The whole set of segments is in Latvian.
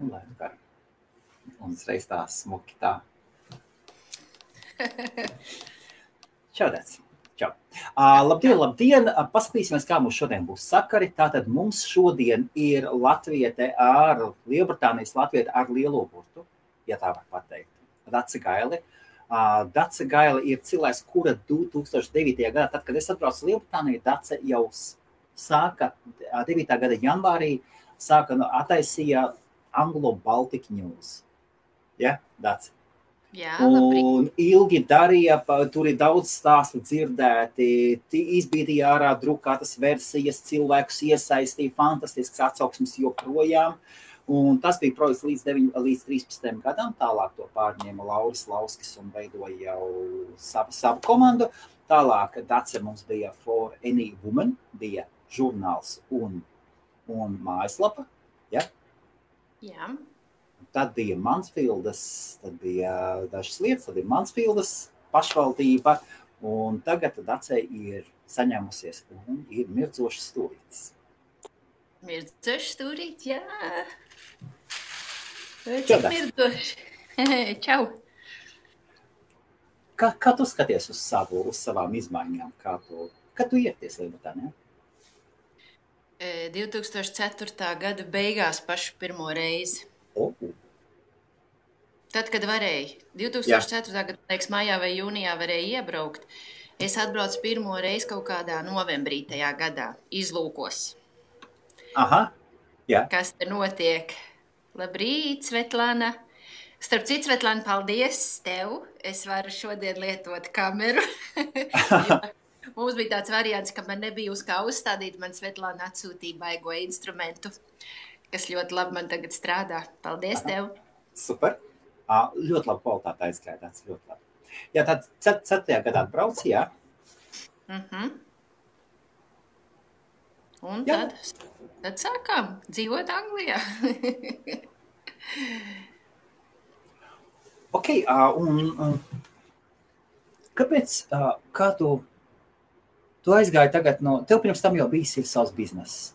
Un lai nu kā. Un uzreiz tā smuki tā. Čau, Dēc. Čau. Labdien! Paskatīsimies, kā mums šodien būs sakari. Tātad mums šodien ir latviete ar Lielbritānijas latviete ar lielo burtu, ja tā var pateikt. Dace Gaile. Dace Gaile ir cilvēks, kura 2009. gadā, tad, kad es atbraucu Lielbritāniju, Dace jau sāka 9. gada janvārī, attaisīja Anglo-Baltic News. Ja, Dace? Jā, un ilgi darīja, tur ir daudz stāstu dzirdēti, izbīdīja ārā drukātas versijas, cilvēkus iesaistīja, fantastisks atsauksmes joprojām. Un tas bija projekts līdz 13. gadam, tālāk to pārņēma Lauris Lauskis un veidoja jau savu komandu. Tālāk Dace mums bija For Any Woman, bija žurnāls un mājaslapa. Ja? Jā. Tad bija Mansfieldas, tad bija dažas lietas, tad bija Mansfieldas pašvaldība, un tagad Dace ir saņēmusies un ir mirdzošs stūrītis. Mirdzošs stūrītis, jā. Čau, Mirdzošs. Čau. Kā tu skaties uz savām izmaiņām? Kad tu ieties Lielbritānijā? 2004. gada beigās pašu pirmo reizi. Tad, kad varēja, 2004. gada, liekas, maijā vai jūnijā varēja iebraukt, es atbraucu pirmo reizi kaut kādā novembrī tajā gadā, izlūkos. Aha, jā. Kas te notiek? Labrīt, Svetlana. Starp citu, Svetlana, paldies tev. Es varu šodien lietot kameru. Mums bija tāds variants, ka man nebija uz kā uzstādīt, man Svetlana atsūtīja baigo instrumentu, kas ļoti labi man tagad strādā. Paldies tev. Super. Ļoti labi kvalitāte aizskaidāts, ļoti labi. Jā, tad 4. gadā atbrauc, jā? Un tad sākām dzīvot Anglijā. Ok, un kāpēc, kā tu aizgāji tagad tev pirms tam jau bijis ir savs bizness.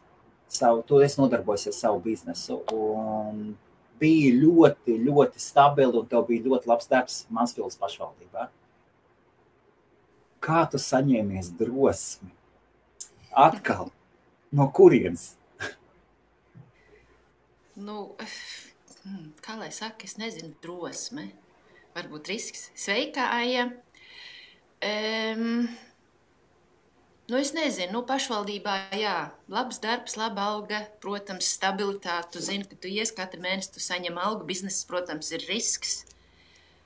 Tu esi nodarbojusies savu biznesu un bija ļoti, ļoti stabili un tev bija ļoti labs darbs Mansfieldas pašvaldībā. Kā tu saņēmies drosmi? Atkal, no kurienes? Kā lai saka, es nezinu, drosme. Varbūt risks. Sveika, Aija. Es nezinu, pašvaldībā, jā, labs darbs, laba alga, protams, stabilitāte, tu zini, ka tu ies katru mēnesi, tu saņem algu, bizness, protams, ir risks.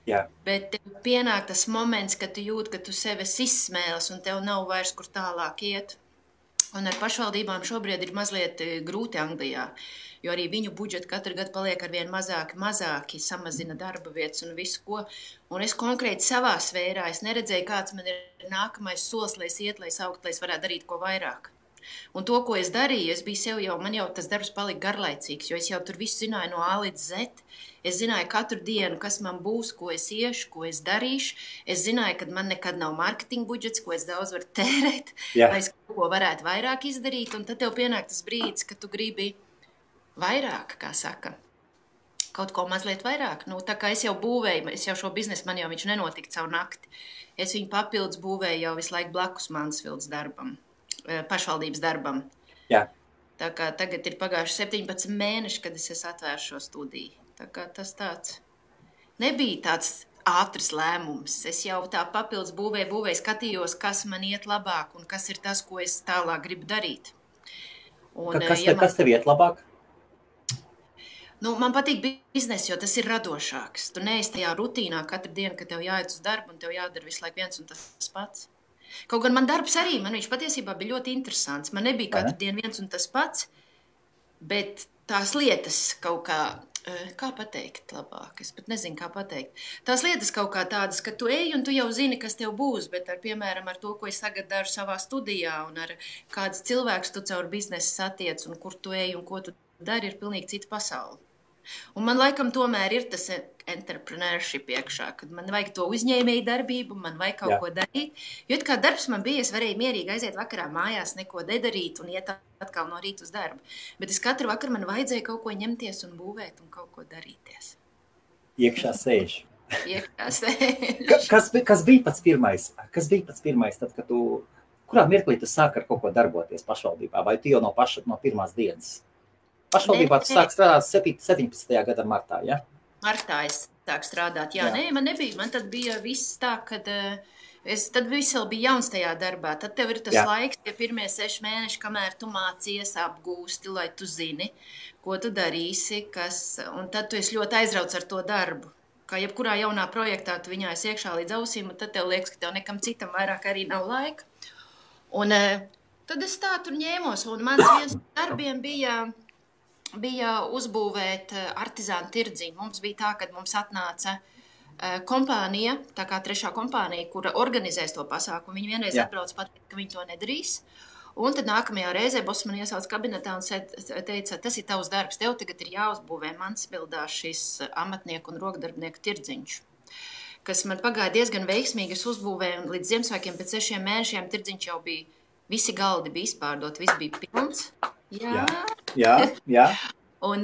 Jā. Bet tev pienāk tas moments, kad tu jūti, ka tu sevi izsmēles un tev nav vairs kur tālāk iet. Un ar pašvaldībām šobrīd ir mazliet grūti Anglijā, jo arī viņu budžeti katru gadu paliek arvien mazāki, samazina darba vietas un visu ko. Un es konkrēti savā sfērā, es neredzēju, kāds man ir nākamais solis, lai es iet, lai es augt, lai es varētu darīt ko vairāk. Un to, ko es darīju, es biju sev jau, man jau tas darbs palika garlaicīgs, jo es jau tur visu zināju no A līdz Z. Es zināju katru dienu, kas man būs, ko es iešu, ko es darīšu. Es zināju, ka man nekad nav marketinga budžets, ko es daudz varu tērēt, lai es kaut ko varētu vairāk izdarīt. Un tad tev pienāk tas brīdis, ka tu gribi vairāk, kā saka, kaut ko mazliet vairāk. Tā kā es jau būvēju, es jau šo biznesu, man jau viņš nenotika caur nakti. Es viņu papildus būvēju jau visu laiku blakus Mansfieldas darbam, pašvaldības darbam. Jā. Tā kā tagad ir pagājuši 17 mēneši, kad es atvēru šo studiju. Tā kā tas tāds nebija tāds ātrs lēmums. Es jau tā papildus būvēju, skatījos, kas man iet labāk un kas ir tas, ko es tālāk gribu darīt. Un, kas tev iet labāk? Man patīk bizness, jo tas ir radošāks. Tu neesi tajā rutīnā katru dienu, kad tev jāiet uz darbu un tev jādara visu laiku viens un tas pats. Kaut gan man darbs arī, man viņš patiesībā bija ļoti interesants. Man nebija katru dienu viens un tas pats, bet tās lietas kaut kā pateikt labāk, es pat nezinu, kā pateikt. Tās lietas kaut kā tādas, ka tu ej un tu jau zini, kas tev būs, bet piemēram ar to, ko es tagad daru savā studijā un ar kādas cilvēkus tu caur biznesu satiec un kur tu ej un ko tu dari, ir pilnīgi cita pasaule. Un man laikam tomēr ir tas entrepreneurship iekšā, kad man vajag to uzņēmēju darbību, man vajag kaut ko darīt. Jo kā darbs man bija, es varēju mierīgi aiziet vakarā mājās, neko nedarīt un iet atkal no rīta uz darbu. Bet es katru vakaru man vajadzēja kaut ko ņemties un būvēt un kaut ko darīties. Iekšā sēž. Iekšā sēž. Kas bija pats pirmais? Tad, kad kurā mirklī tu sāki ar kaut ko darboties pašvaldībā? Vai tu jau no pirmās dienas? Pašvaldībā tu sāki strādāt 17. gada martā, ja? Martā es sāku strādāt, jā. Nē, man nebija. Man tad bija viss tā, kad tad viss vēl bija jauns tajā darbā. Tad tev ir tas laiks, tie pirmie 6 mēneši, kamēr tu mācies, apgūsti, lai tu zini, ko tu darīsi, un tad tu esi ļoti aizrauts ar to darbu. Kā jebkurā jaunā projektā tu viņā esi iekšā līdz ausīm, un tad tev liekas, ka tev nekam citam vairāk arī nav laika. Un tad es tā tur ņēmos, un mans viens darbiem bija uzbūvēt artizānu tirdziņu. Mums bija tā, kad mums atnāca kompānija, tā kā trešā kompānija, kura organizēs to pasākumu. Viņi vienreiz atbrauc pateikt, ka viņi to nedarīs. Un tad nākamajā reizē boss man iesauc kabinetā un teica, tas ir tavs darbs, tev tagad ir jāuzbūvē Mansbildā šis amatnieku un rokdarbnieku tirdziņš, kas man pagāja diezgan veiksmīgi. Es uzbūvēju un līdz Ziemassvētkiem pēc 6 mēnešiem tirdziņš jau bija, visi galdi bija izpārdot, viss bija pilns. Jā. Un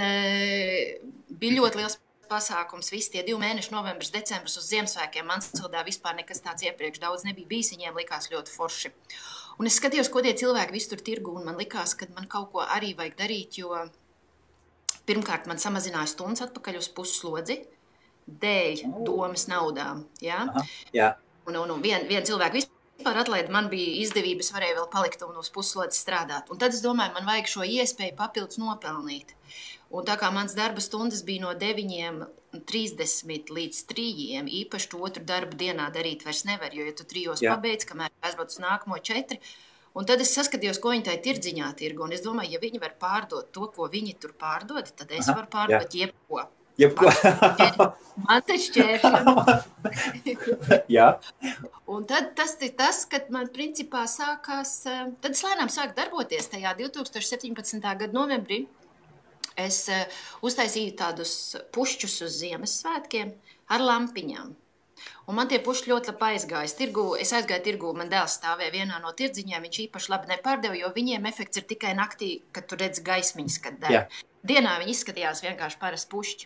bija ļoti liels pasākums. Visi tie 2 mēneši, novembris, decembris uz Ziemassvētkiem Mansbildā vispār nekas tāds iepriekš daudz nebija bijis. Viņiem likās ļoti forši. Un es skatījos, ko tie cilvēki visu tur tirgu, un man likās, ka man kaut ko arī vajag darīt, jo pirmkārt man samazināja stundas atpakaļ uz pusslodzi dēļ domas naudām. Ja? Jā. Un vien cilvēku vispār atlaida, man bija izdevības, varēja vēl palikt un uz pusslodzes strādāt. Un tad es domāju, man vajag šo iespēju papildus nopelnīt. Un tā kā mans darba stundas bija no 9:30 līdz 3, īpaši to otru darbu dienā darīt vairs nevar, jo ja tu 3 pabeidz, kamēr aizbrauc uz nākamo 4, un tad es saskatījos, ko viņi tai tirdziņā tirgo, un es domāju, ja viņi var pārdot to, ko viņi tur pārdod, tad es varu pārdot jebko. Man te šķēršļi. Jā. Un tad tas ir tas, kad man principā sākās, tad es lēnām sāku darboties tajā 2017. gada novembrī. Es uztaisīju tādus pušķus uz Ziemassvētkiem ar lampiņām. Un man tie pušķi ļoti labi aizgājas. Es aizgāju tirgu, man dēls stāvēja vienā no tirdziņiem, viņš īpaši labi nepārdeva, jo viņiem efekts ir tikai naktī, kad tu redz gaismiņas, kad deg. Dienā viņi izskatījās vienkārši parasti pušķi.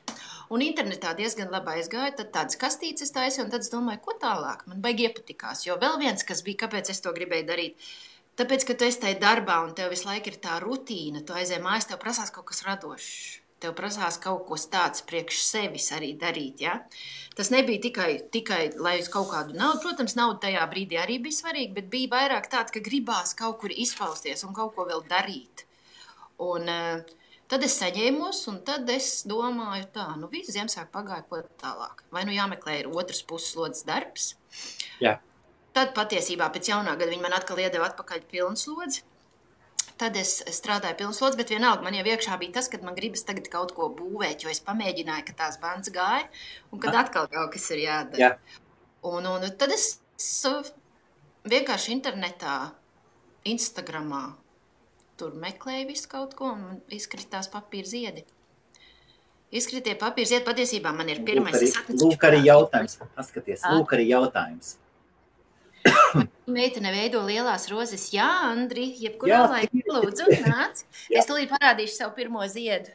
Un internetā diezgan labi aizgāja, tad tādas kastītes taisīju, un tad es domāju, ko tālāk? Man baigi iepatikās, jo vēl viens, kas bija, kāpēc es to gribēju darīt, tāpēc, ka tu esi tajā darbā un tev visu laiku ir tā rutīna, tu aizēji mājās, tev prasās kaut kas radošs, tev prasās kaut ko tāds priekš sevis arī darīt, ja? Tas nebija tikai lai uz kaut kādu naudu, protams, nauda tajā brīdī arī bija svarīga, bet bija vairāk tāds, ka gribās kaut kur izpausties un kaut ko vēl darīt. Un tad es saņēmos, un tad es domāju tā, visu Ziemassvētku pagāja, ko tālāk. Vai jāmeklē ir otras pusslodzes darbs? Jā. Tad patiesībā pēc jaunā gada viņi man atkal iedeva atpakaļ pilnslodzi. Tad es strādāju pilnslodzi, bet vienalga man jau iekšā bija tas, kad man gribas tagad kaut ko būvēt, jo es pamēģināju, ka tās bandas gāja, un kad atkal kaut kas ir jādara. Jā. Un tad es vienkārši internetā, Instagramā, tur meklēju visu kaut ko, un izkritās papīra ziedi. Izkritie papīra ziedi, patiesībā man ir pirmais. Lūk arī jautājums. Paskaties, lūk arī jautājums. Meitene veido lielās rozes. Jā, Andri, jebkurā laikā lūdzu, nāc. Es tūlīt parādīšu savu pirmo ziedu.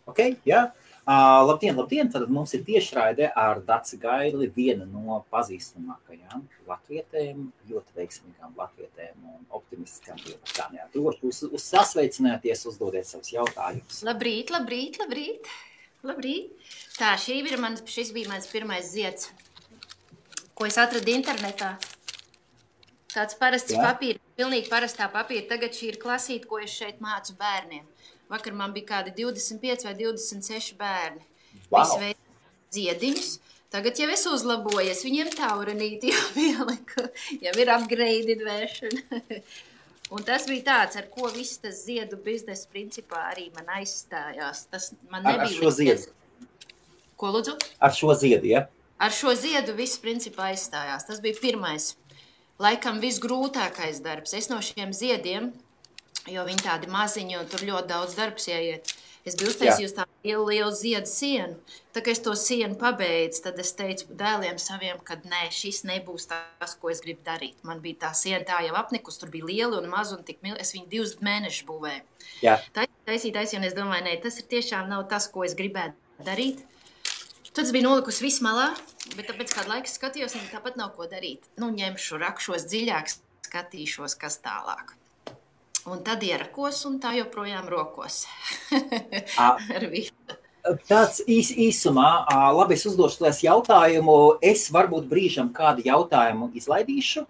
Ok, jā. Labdien. Tad mums ir tiešraide ar Daci Gaili, viena no pazīstamākajām latvietēm, ļoti veiksmīgām latvietēm un optimistiskām lietām. Droši sasveicināties, uzdodiet savus jautājumus. Labrīt. Tā, šis bija mans pirmais zieds, ko es atradu internetā. Tāds parasts papīra, pilnīgi parastā papīra. Tagad šī ir klasīte, ko es šeit mācu bērniem. Vakar man bija kādi 25 vai 26 bērni. Visi veids ziediņus. Tagad jau es uzlabojies, viņiem taurenīti jau pieliku, jau ir upgraded veršana. Un tas bija tāds, ar ko viss tas ziedu biznesa principā arī man aizstājās. Tas man nebija ar šo ziedu? Ko lūdzu? Ar šo ziedu, ja? Ar šo ziedu viss principā aizstājās. Tas bija pirmais. Laikam visgrūtākais darbs. Es no šiem ziediem, jo viņi tādi maziņi un tur ļoti daudz darbs ieiet. Es biju uztaisījusi tādu lielu ziedu sienu. Tā kā es to sienu pabeidzu, tad es teicu dēliem saviem, ka nē, šis nebūs tas, ko es gribu darīt. Man bija tā siena tā jau apnikus, tur bija lieli un mazi un tik es viņu 2 mēnešus būvēju. Jā. Taisīt, un es domāju, nē, tas ir tiešām nav tas, ko es gribētu darīt. Tad es biju nolikusi visu malā, bet tāpēc kādu laiku skatījos, un tāpat nav ko darīt. Nu, ņemšu, rakšos dziļāk, skatīšos, kas tālāk. Un tad ierakos, un tā joprojām rokos. Ar visu. Tāds īsumā, labi, es uzdošu tās jautājumu. Es varbūt brīžam kādu jautājumu izlaidīšu.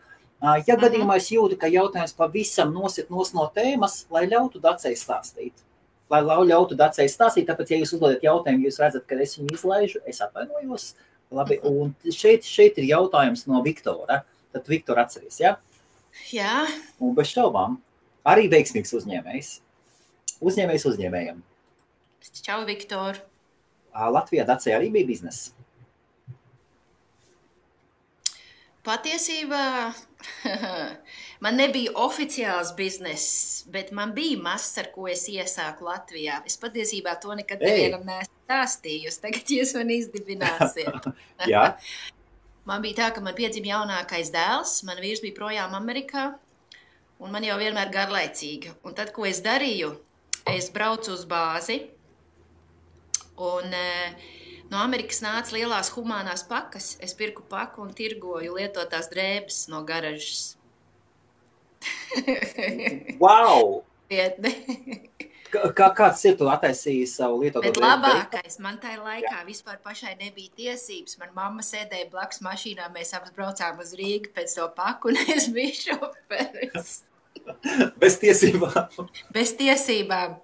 Ja gadījumā es jūtu, ka jautājums pavisam nosit no tēmas, lai ļautu Dacei stāstīt. Tāpēc, ja jūs uzdodat jautājumu, jūs redzat, ka es viņu izlaižu, es atvainojos. Labi, un šeit ir jautājums no Viktora. Tad Viktor atceries, ja? Jā. Un bez šaubām. Arī veiksmīgs uzņēmējs. Uzņēmējs uzņēmējam. Čau, Viktor. Latvijā Dacei arī bija bizness. Patiesībā man nebija oficiāls bizness, bet man bija mazs, ar ko es iesāku Latvijā. Es patiesībā to nekad nevienam neesmu stāstījusi. Tagad jūs man izdibināsiet. Jā. Man bija tā, ka man piedzima jaunākais dēls. Man vīrs bija projām Amerikā. Un man jau vienmēr garlaicīga. Un tad, ko es darīju, es braucu uz bāzi, un no Amerikas nāca lielās humānās pakas. Es pirku paku un tirgoju lietotās drēbes no garažas. Wow! Vietne. Kāds ir tu attaisīji savu lietoto Bet drēbu? labākais, man tajā laikā vispār pašai nebija tiesības. Man mamma sēdēja blakus mašīnā, mēs abas braucām uz Rīgu pēc to paku, un es biju šoferis. Bez tiesībām. Bez tiesībām.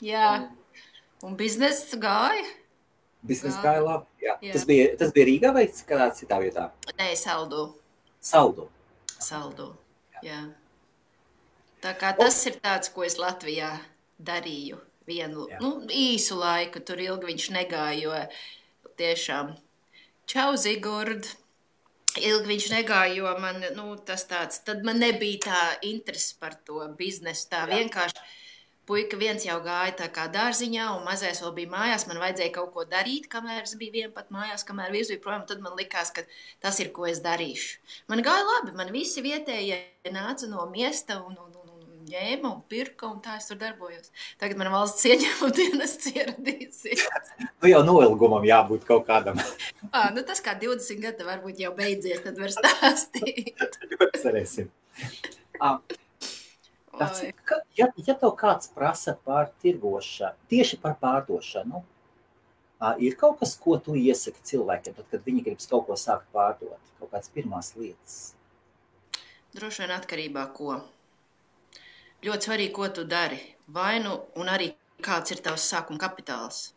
Jā. Un biznesa gāja? Biznesa gāja labi. Jā. Jā. Tas bija Rīgā vai kādā citā vietā? Nē, Saldu. Saldu. Jā. Tā kā tas ir tāds, ko es Latvijā darīju vienu īsu laiku. Tur ilgi viņš negāja, jo tiešām čau, Zigurd. Ilgi viņš negāja, jo man, tas tāds, tad man nebija tā interesi par to biznesu. Tā vienkārši puika viens jau gāja tā kā dārziņā, un mazais vēl bija mājās. Man vajadzēja kaut ko darīt, kamēr es biju vien pat mājās, kamēr vīrs bija projām. Tad man likās, ka tas ir, ko es darīšu. Man gāja labi, man visi vietējie nāca no miesta un ņēma un pirka, un tā es tur darbojos. Tagad man valsts ieņēmuma dienests ieradīsies. Jau noilgumam jābūt kaut kādam. Tas kā 20 gadi varbūt jau beidzies, tad var stāstīt. Cerēsim. Ja tev kāds prasa par tirgošanu, tieši par pārdošanu, ir kaut kas, ko tu iesaki cilvēkiem, tad, kad viņi gribas kaut ko sākt pārdot, kaut kādas pirmās lietas? Droši vien atkarībā ko. Ļoti svarīgi, ko tu dari. Un arī kāds ir tavs sākuma kapitāls.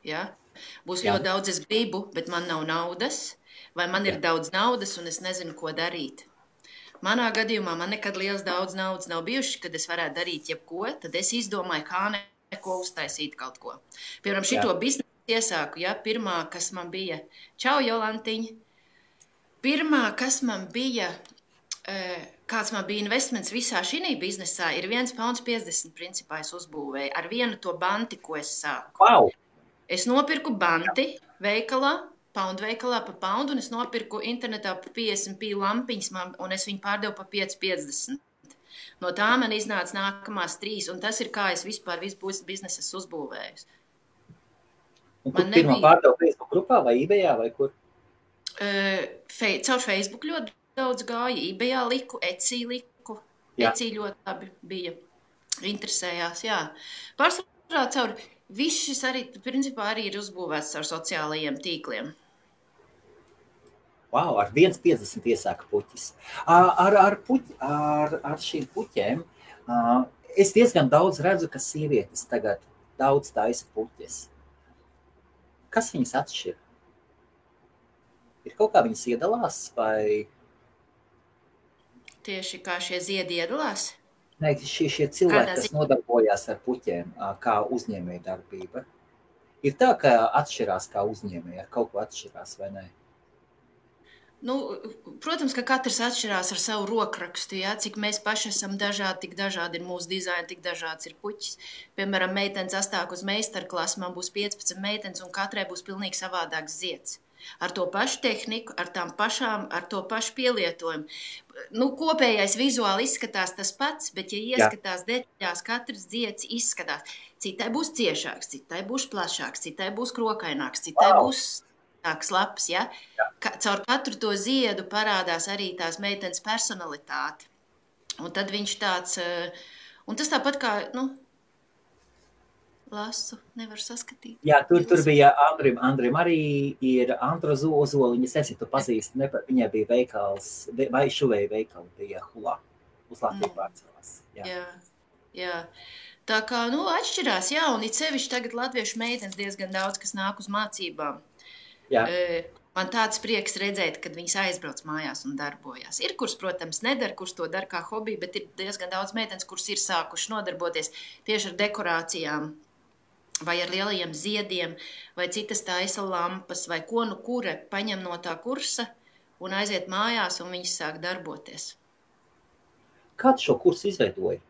Ja? Būs ļoti daudz, es gribu, bet man nav naudas, vai man ir daudz naudas un es nezinu, ko darīt. Manā gadījumā man nekad liels daudz naudas nav bijuši, kad es varētu darīt jebko, tad es izdomāju, kā neko uztaisīt kaut ko. Piemēram, šito biznesu iesāku, pirmā, kas man bija, čau, Jolantiņa, pirmā, kas man bija, kāds man bija investments visā šī biznesā, ir 1,50 pounds principā es uzbūvēju ar vienu to banti, ko es sāku. Wow. Es nopirku banti veikalā, poundu veikalā pa poundu, un es nopirku internetā pa 50p lampiņas, un es viņu pārdevu pa 5,50. No tā man iznāca nākamās 3, un tas ir kā es vispār visu biznesu uzbūvēju. Un kur pirmā pārdevu Facebook grupā vai eBayā vai kur? Caur Facebook ļoti daudz gāja, eBayā liku, Etsy liku. Etsy ļoti labi bija. Interesējās, jā. Pārsvarā caur viss šis arī, principā, arī ir uzbūvēts caur sociālajiem tīkliem. Wow, ar 1,50 iesāka puķis. Ar šīm puķēm es diezgan daudz redzu, ka sievietes tagad daudz taisa puķes. Kas viņas atšķir? Ir kaut kā viņas iedalās vai... Tieši kā šie ziedi iedalās? Nē, šie cilvēki, kas nodarbojās ar puķiem, kā uzņēmēja darbība. Ir tā, ka atšķirās kā uzņēmēja, ar kaut ko atšķirās vai nē? Nu, protams, ka katrs atšķirās ar savu rokrakstu. Ja? Cik mēs paši esam dažādi, tik dažādi ir mūsu dizaini, tik dažāds ir puķis. Piemēram, meitenes astāk uz meistarklasu, man būs 15 meitenes, un katrai būs pilnīgi savādāks zieds. Ar to pašu tehniku, ar tām pašām, ar to pašu pielietojumu. Nu, kopējais vizuāli izskatās tas pats, bet, ja ieskatās detaļās, katrs zieds izskatās. Citai būs ciešāks, citai būs plašāks, citai būs krokaināks, citai būs tāks labs, ja? Caur katru to ziedu parādās arī tās meitenes personalitāte. Un tad viņš tāds, un tas tāpat kā, nu, lasu, nevar saskatīt. Jā, tur bija Andrim arī ir Andra Ozoliņa, es tu pazīsti, viņai bija veikals, vai šuvēja veikali bija Hulā, uz Latviju pārcēlās. Jā. Tā kā, nu, atšķirās, jā, un it sevišķi tagad latviešu meitenes diezgan daudz, kas nāk uz mācībām. Jā. Man tāds prieks redzēt, kad viņas aizbrauc mājās un darbojas. Ir, kuras, protams, nedara, kuras to dara kā hobiju, bet ir diezgan daudz meitenes, kuras ir sākuši nodarboties tieši ar dekorācijām, vai ar lielajiem ziediem, vai citas taisa lampas, vai ko nu kura paņem no tā kursa un aiziet mājās, un viņas sāk darboties. Kāds šo kursu izveidoja?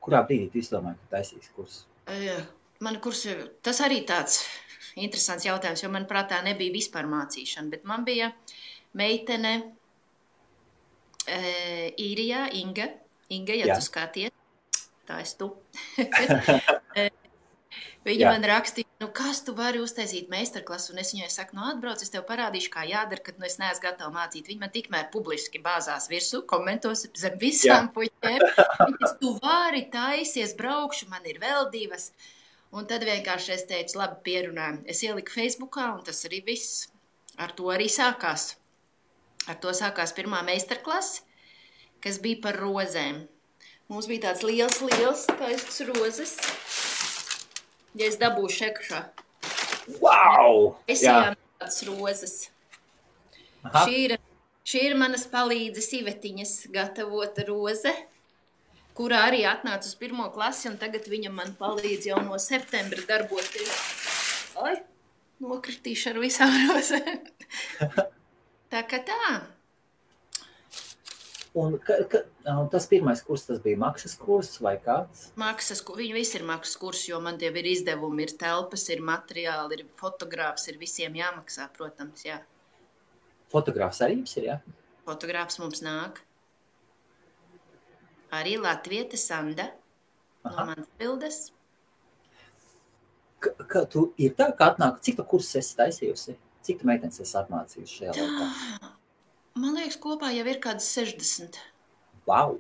Kurā brīdī tu izdomāji, ka taisīs kursu? Man kursu, tas arī tāds interesants jautājums, jo man prātā nebija vispār mācīšana, bet man bija meitene Īrijā, Inga, ja tu skaties, tā es tu. Viņa man rakstīja, nu kas tu vari uztaisīt meistarklasu, un es viņai saku, nu atbrauc, es tev parādīšu, kā jādara, kad nu es neesmu gatava mācīt. Viņa man tikmēr publiski bāzās virsū, komentos zem visām puķēm. Viņa tu vari taisies, braukšu, man ir vēl 2. Un tad vienkārši es teicu, labi, pierunājam. Es ieliku Facebookā, un tas arī viss. Ar to arī sākās. Ar to sākās pirmā meistarklase, kas bija par rozēm. Mums bija tāds liels taists rozes. Ja es dabūšu ekšā. Wow! Es ejām tādas rozes. Šī ir manas palīdzes Ivetiņas gatavota roze, kurā arī atnāca uz 1. klasi, un tagad viņa man palīdz jau no septembra darboties. Ai, nokritīšu ar visām rozēm. Tā kā tā. Un tas pirmais kurs, tas bija maksas kurs vai kāds? Viņi visi ir maksas kurs, jo man tie ir izdevumi, ir telpas, ir materiāli, ir fotogrāfs, ir visiem jāmaksā, protams, jā. Fotogrāfs arī jums ir, jā? Fotogrāfs mums nāk. Arī Latviete Sanda no manas bildes. Tu ir tā, ka atnāk, cik tu kursus esi taisījusi? Cik tu meitenes esi atmācījusi šajā laikā? Man liekas, kopā jau ir kādas 60. Wow!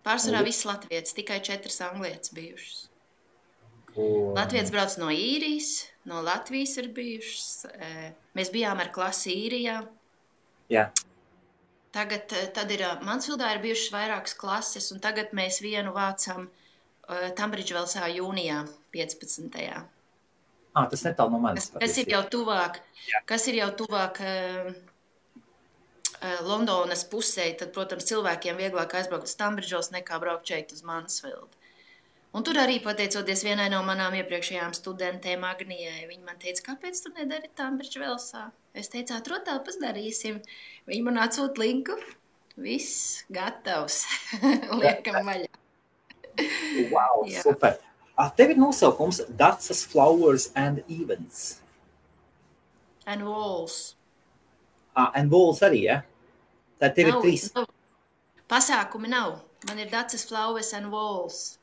Pārsvarā viss latvietis, tikai 4 anglietis bijušas. Latvietis brauc no Īrijas, no Latvijas ir bijušas. Mēs bijām ar klasi Īrijā. Jā. Tad ir Mansfildā ir bijušas vairākas klases, un tagad mēs vienu vācam Tambridžvelsā jūnijā 15. Tas netālu no manis. Kas ir jau tuvāk Londonas pusē, tad, protams, cilvēkiem vieglāk aizbraukt uz Tambridžvels nekā braukt šeit uz Mansfildu. Un tur arī pateicoties vienai no manām iepriekšējām studentēm Agnijai, viņa man teica, kāpēc tu nedari Tambridžvelsā? Es teicu, atrod telpas darīsim. Viņa man atsūt linku. Viss gatavs. Liekam vaļā. Wow, super. Tev ir nosaukums Dacas Flowers and Events. And Walls. And Walls arī, ja? Tad tev ir 3. Pasākumi nav. Man ir Dacas Flowers and Walls.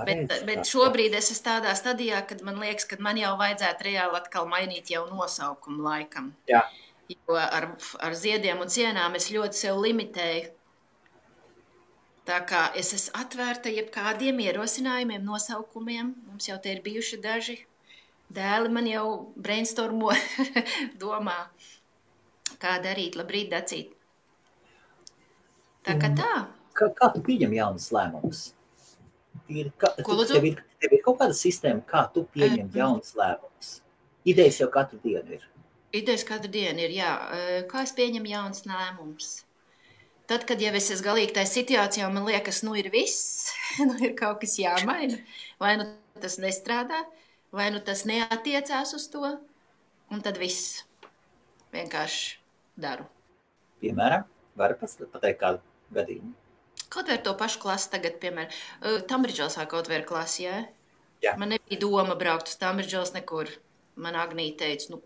Bet šobrīd es esmu tādā stadijā, kad man liekas, ka man jau vajadzētu reāli atkal mainīt jau nosaukumu laikam. Jā. Jo ar ziediem un sienām es ļoti sev limitēju. Tā kā es esmu atvērta jebkādiem ierosinājumiem, nosaukumiem. Mums jau te ir bijuši daži. Dēli man jau brainstormo domā, kā darīt. Labrīt, Dacīt. Tā kā tā. Kā tu pieņem jaunas lēmumus? Tev ir kaut kāda sistēma, kā tu pieņem jaunas lēmumus? Idejas jau katru dienu ir. Idejas katru dienu ir, jā. Kā es pieņemu jaunas lēmumus? Tad, kad jau es esmu galīgi tajā situācijā, man liekas, nu ir viss, nu ir kaut kas jāmaina. Vai nu tas nestrādā, vai nu tas neatiecās uz to, un tad viss. vienkārši daru. Piemēram, var pateikt kādu gadījumu? Kaut vai ar to pašu klasi tagad, piemēram, Tambridželsā kaut vai ir klasi, jā? Jā. Man nebija doma braukt uz Tambridžels nekur. Man Agnīte teica,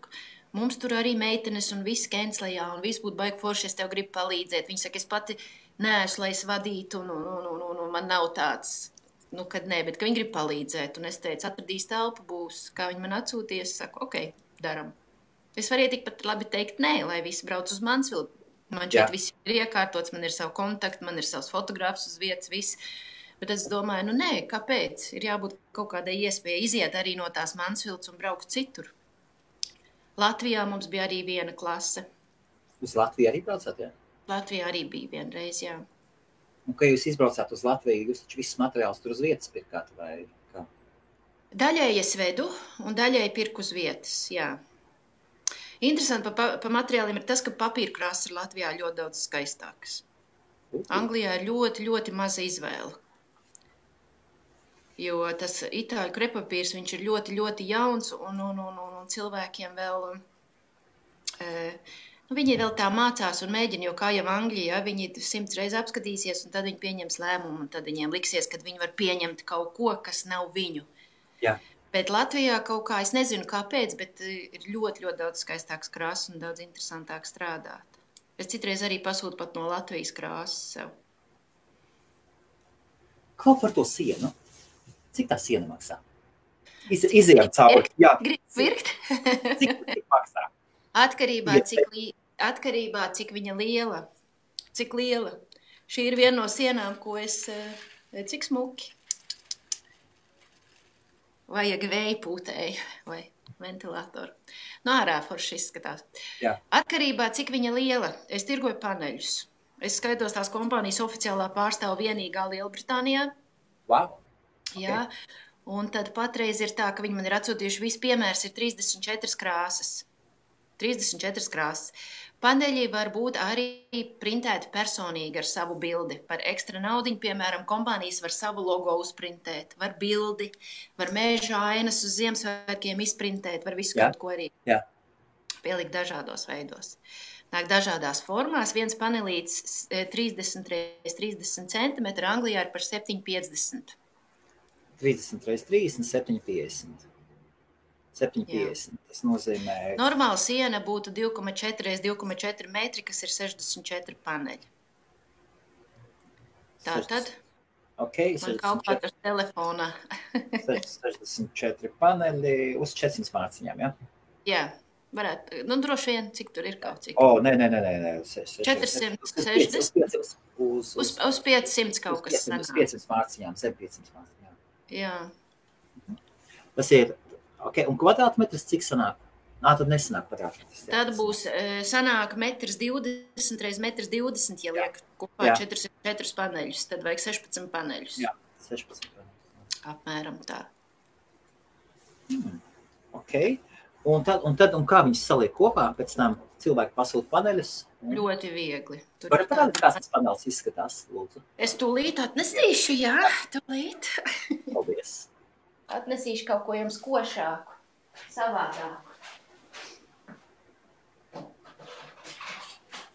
mums tur arī meitenes un viss kenslējā, un viss būtu baigi forši, es tev gribu palīdzēt. Viņa saka, es pati neesmu, lai es vadītu, un man nav tāds, kad nē, bet ka viņi grib palīdzēt. Un es teicu, atradīs telpu, būs, kā viņi man atsūties, saku, ok, daram. Es varēju tikpat labi teikt nē, lai visi brauc uz Mansfield. Man šeit viss ir iekārtots, man ir savu kontaktu, man ir savs fotogrāfs uz vietas, viss. Bet es domāju, nē, kāpēc? Ir jābūt kaut kādai iespēja iziet arī no tās Mansfields un braukt citur. Latvijā mums bija arī viena klase. Uz Latviju arī braucāt, jā? Latvijā arī bija vienreiz, jā. Un, kad jūs izbraucāt uz Latviju, jūs taču visus materiālus tur uz vietas pirkāt, vai kā? Daļēji es vedu un daļēji pirku uz vietas, jā. Interesanti pa materiāliem ir tas, ka papīra krāsas ir Latvijā ļoti daudz skaistākas. Anglijā ir ļoti, ļoti maza izvēle. Jo tas itāļu krepapīrs, viņš ir ļoti, ļoti jauns un cilvēkiem vēl, viņi vēl tā mācās un mēģina, jo kā jau Anglijā, viņi 100 reizes apskatīsies un tad viņi pieņems lēmumu un tad viņiem liksies, ka viņi var pieņemt kaut ko, kas nav viņu. Jā. Bet Latvijā kaut kā, es nezinu kāpēc, bet ir ļoti, ļoti daudz skaistāks krāsas un daudz interesantāk strādāt. Es citreiz arī pasūtu pat no Latvijas krāsas sev. Kaut par to sienu. Cik tā siena maksā? Izejām cauri. Jā. Gribu pirkt? Cik maksā? Atkarībā, cik viņa liela. Cik liela. Šī ir viena no sienām, ko es, cik smuki. Vajag vēja pūtēju vai ventilatoru. No ārā forši izskatās. Jā. Atkarībā, cik viņa liela. Es tirgoju paneļus. Es skaitos tās kompānijas oficiālā pārstāvu vienīgā Lielbritānijā. Wow. Jā. Un tad patreiz ir tā, ka viņi man ir atsūtījuši, viss piemērs ir 34 krāsas. 34 krāsas. Paneļi var būt arī printēti personīgi ar savu bildi. Par ekstra naudiņu, piemēram, kompānijas var savu logo uzprintēt, var bildi, var mēža ainas uz Ziemassvētkiem izprintēt, var visu kaut ko arī pielikt dažādos veidos. Nāk dažādās formās, viens panelīts 30 x 30 cm, Anglijā ir par 7,50. 30 x 30, 7,50. 7,50. Tas nozīmē... Normāla siena būtu 2,4 x 2,4 metri, kas ir 64 paneļi. Tātad man kaut kā tas telefonā. 64 paneļi uz 400 mārciņām, jā? Jā, varētu. Droši vien, cik tur ir kaut cik. Nē. 460. Uz 500 kaut kas sanāk. Uz 500 mārciņām, 700 mārciņām. Jā. Tas ir... Okay, un kvadrātmetrs cik sanāk? Tad nesanāk kvadrātmetrs. Tad būs sanāk 1,20 m x 1,20 m, ja liek kopā 4 paneļus, tad vajag 16 paneļus. Jā, 16 paneļus. Apmēram tā. Ok. Un kā viņus saliek kopā? Pēc tam cilvēki pasūta paneļus? Ļoti viegli. Var parādīt, kāds tas panelis izskatās, lūdzu? Es tūlīt atnesīšu, jā, tūlīt. Paldies. Atnesīšu kaut ko jums košāku, savādāku.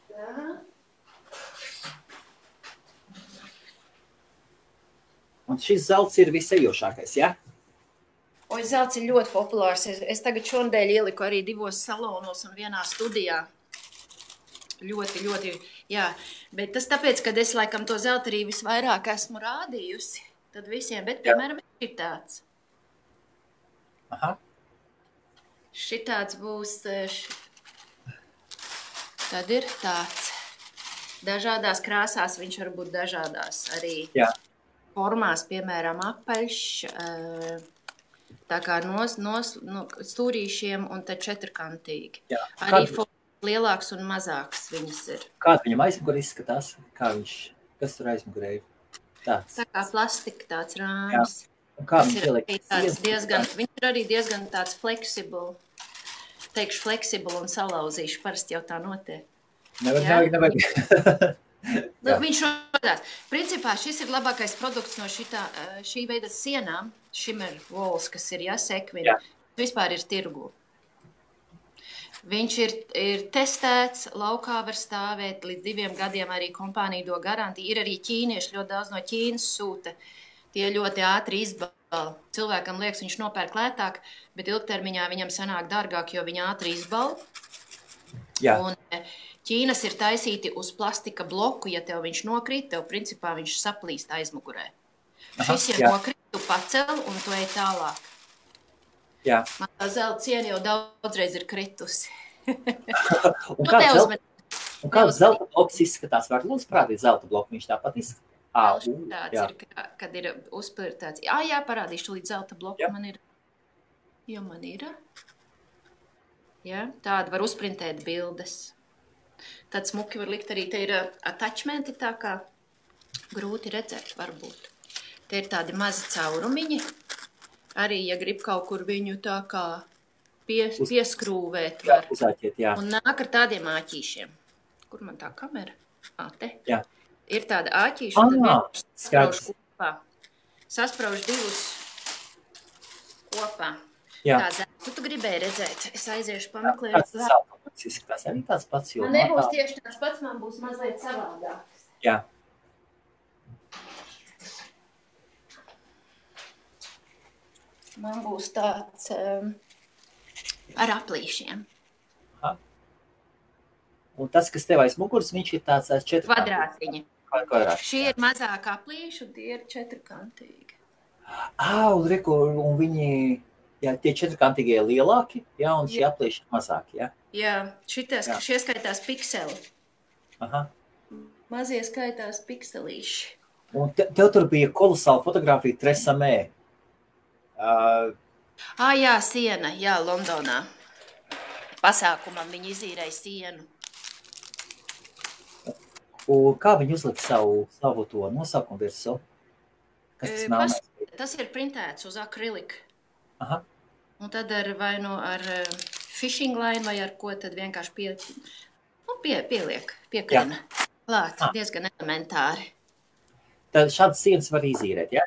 Tā. Un šis zelts ir visejošākais, jā? Zelts ir ļoti populārs. Es tagad šonadēļ ieliku arī 2 salonos un vienā studijā. Ļoti, ļoti, jā. Bet tas tāpēc, kad es laikam to zeltu arī visvairāk esmu rādījusi, tad visiem, bet piemēram ir tāds. Aha. Šitāds būs, tad ir tāds. Dažādās krāsās viņš var būt dažādās arī formās, piemēram, apaļš, tā kā stūrīšiem un tad četrkantīgi. Jā. Arī lielāks un mazāks viņas ir. Kāda viņam aizmugurē izskatās? Kas tur aizmugurē ir? Tāds. Tā kā plastika tāds rāms. Kā viņš ieliek? Viņš ir arī diezgan tāds fleksibl. Teikšu fleksibl un salauzīšu. Parasti jau tā notiek. Nevajag. Viņš rodās. Principā šis ir labākais produkts no šī veida sienām. Shimmer walls, kas ir sekvini. Vispār ir tirgu. Viņš ir testēts, laukā var stāvēt līdz 2 gadiem, arī kompānija do garantiju. Ir arī ķīnieši, ļoti daudz no Ķīnas sūta. Tie ļoti ātri izbala. Cilvēkam liekas, viņš nopērk lētāk, bet ilgtermiņā viņam sanāk dārgāk, jo viņa ātri izbala. Jā. Un Ķīnas ir taisīti uz plastika bloku, ja tev viņš nokrīt, tev principā viņš saplīst aizmugurē. Šis ir nokrīt, tu pacel un tu ej tālāk. Jā. Man tā zelta ciena jau daudzreiz ir kritusi. Un kāds zelta bloks izskatās? Var lūdzu parādīt zelta bloku, viņš tāpat izskatās. Tāds ir, kad ir uzpirtāts. Jā, parādīšu līdz zelta bloku. Man ir. Jo man ir. Jā, tāda var uzprintēt bildes. Tad smuki var likt arī, te ir attachmenti tā kā grūti redzēt varbūt. Te ir tādi mazi caurumiņi. Arī, ja grib kaut kur viņu tā kā pieskrūvēt var. Uzāķiet, jā. Un nāk ar tādiem āķīšiem. Kur man tā kamera? Te. Jā. Ir tāda āķīša, un tad vienkārši sasprauž kopā. Sasprauž 2 kopā. Jā. Tā zelta tu gribēji redzēt. Es aiziešu pameklēt. Kāds zelta bloks izskatās? Arī tāds pats, jo... Man nebūs tieši tāds pats, man būs mazliet savādāks. Jā. Man būs tāds ar aplīšiem. Aha. Un tas, kas tev aiz muguras, viņš ir tāds 4 kvadrātiņi. Kvadrātiņi. Šie ir mazāk aplīši, un tie ir 4-kantīgi. Un viņi, jā, tie 4-kantīgie lielāki, jā, un šie aplīši mazāki, jā? Jā, šie skaitās pikseli. Aha. Mazie skaitās pikselīši. Un tev tur bija kolosāla fotografija Tresamē. Jā, siena, jā, Londonā. Pasākumam viņi izīrēja sienu. Un kā viņi uzlika savu to nosaukumu virsū? Kas tas melnais? Tas ir printēts uz akriliku. Aha. Un tad vai nu ar fishing line vai ar ko tad vienkārši pieliek, piekrina. Klāt, diezgan elementāri. Tad šādas sienas var izīrēt, jā?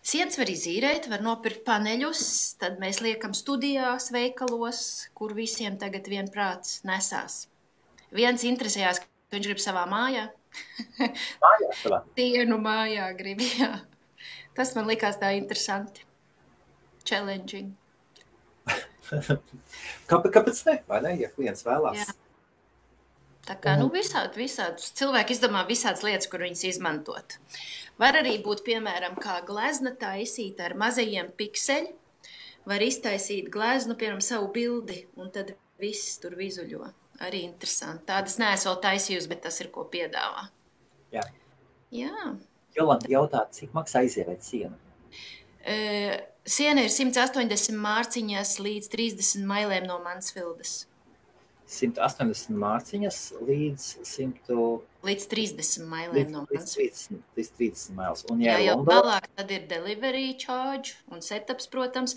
Sienas var izīrēt, var nopirkt paneļus, tad mēs liekam studijās, veikalos, kur visiem tagad vienprāts nesās. Viens interesējās, ka viņš grib savā mājā. Mājā savā? Sienu mājā grib, jā. Tas man likās tā interesanti. Challenging. Kāpēc ne? Vai ne, ja klients vēlās? Jā. Tā kā, visādi. Cilvēki izdomā visādas lietas, kur viņas izmantot. Var arī būt, piemēram, kā glezna taisīt ar mazajiem pikseļi. Var iztaisīt gleznu, piemēram, savu bildi, un tad viss tur vizuļo. Arī interesanti. Tādas neesmu vēl taisījusi, bet tas ir, ko piedāvā. Jā. Jā. Jolanta jautā, cik maksā izīrēt sienu? Siena ir 180 mārciņas līdz 30 mailēm no Mansfildas. 180 mārciņas līdz 100... Līdz 30 mailēm no Mansfildas. Līdz 30 mailes. Un jā, jau vēlāk tad ir delivery charge un setups, protams.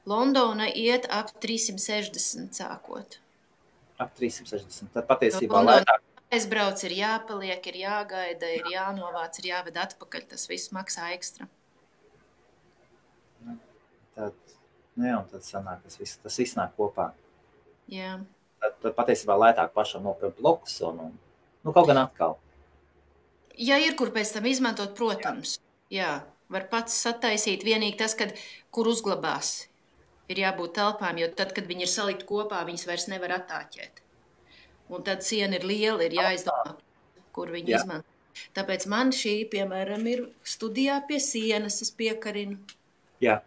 Londona iet ap 360 sākot. Ap 360. Tad patiesībā lētāk. Aizbrauc, ir jāpaliek, ir jāgaida, ir jānovāc, ir jāved atpakaļ. Tas viss maksā ekstra. Tad sanāk, tas viss nāk kopā. Jā. Tad patiesībā lētāk pašam nopirkt blokus un kaut gan atkal. Ja ir, kur pēc tam izmantot, protams. Jā, var pats sataisīt. Vienīgi tas, kur uzglabās, ir jābūt telpām, jo tad, kad viņi ir salikt kopā, viņas vairs nevar attāķēt. Un tad siena ir liela, ir jāizdomā, kur viņi izmanto. Tāpēc man šī, piemēram, ir studijā pie sienas, es piekarinu. Jā.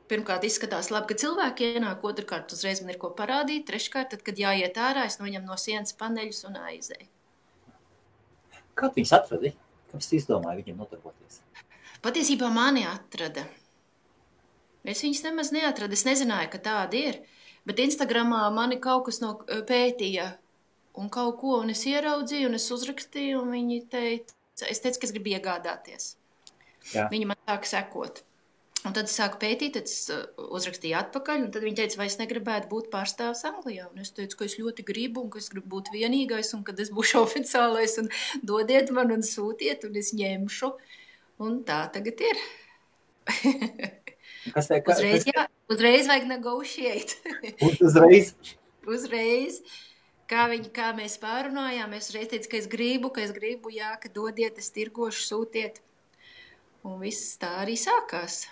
Pirmkārt, izskatās labi, ka cilvēki ienāk, otrkārt, uzreiz man ir ko parādīt, treškārt, tad, kad jāiet ārā, es noņem no sienas paneļus un aizēju. Kā viņus atradi? Kāpēc tu izdomāji viņiem nodarboties? Patiesībā mani atrada. Es viņus nemaz neatradu, es nezināju, ka tādi ir, bet Instagramā mani kaut kas pētīja un kaut ko, un es ieraudzīju, un es uzrakstīju, un viņi teica, es teicu, ka es gribu iegādāties. Jā. Viņi man sāka sekot. Un tad es sāku pētīt, tad es uzrakstīju atpakaļ, un tad viņi teica, vai es negribētu būt pārstāvs Anglijā. Un es teicu, ka es ļoti gribu, un ka es gribu būt vienīgais, un kad es būšu oficiālais, un dodiet man un sūtiet, un es ņemšu. Un tā tagad ir. Uzreiz vajag negotiate. Uzreiz. uzreiz. Kā mēs pārunājām, es reiz teicu, ka es gribu, jā, ka dodiet, es tirgošu, sūtiet. Un viss tā arī sākās.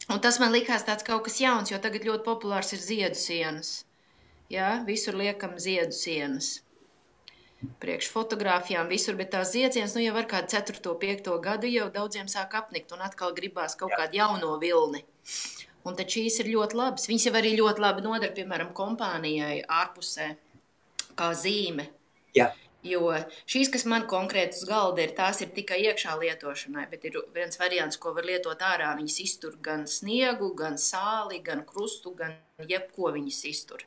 Un tas man likās tāds kaut kas jauns, jo tagad ļoti populārs ir ziedu sienas. Jā, visur liekam ziedu sienas. Priekš fotogrāfijām visur, bet tās ziedsienas, jau var kādu 4. 5. gadu jau daudziem sāk apnikt un atkal gribās kaut kādu jauno vilni. Un tad šīs ir ļoti labas. Viņas jau arī ļoti labi nodara, piemēram, kompānijai ārpusē, kā zīme. Jā. Jo šīs, kas man konkrēti uz galda ir, tās ir tikai iekšā lietošanai, bet ir viens variants, ko var lietot ārā. Viņas iztur gan sniegu, gan sāli, gan krustu, gan jebko viņas iztur.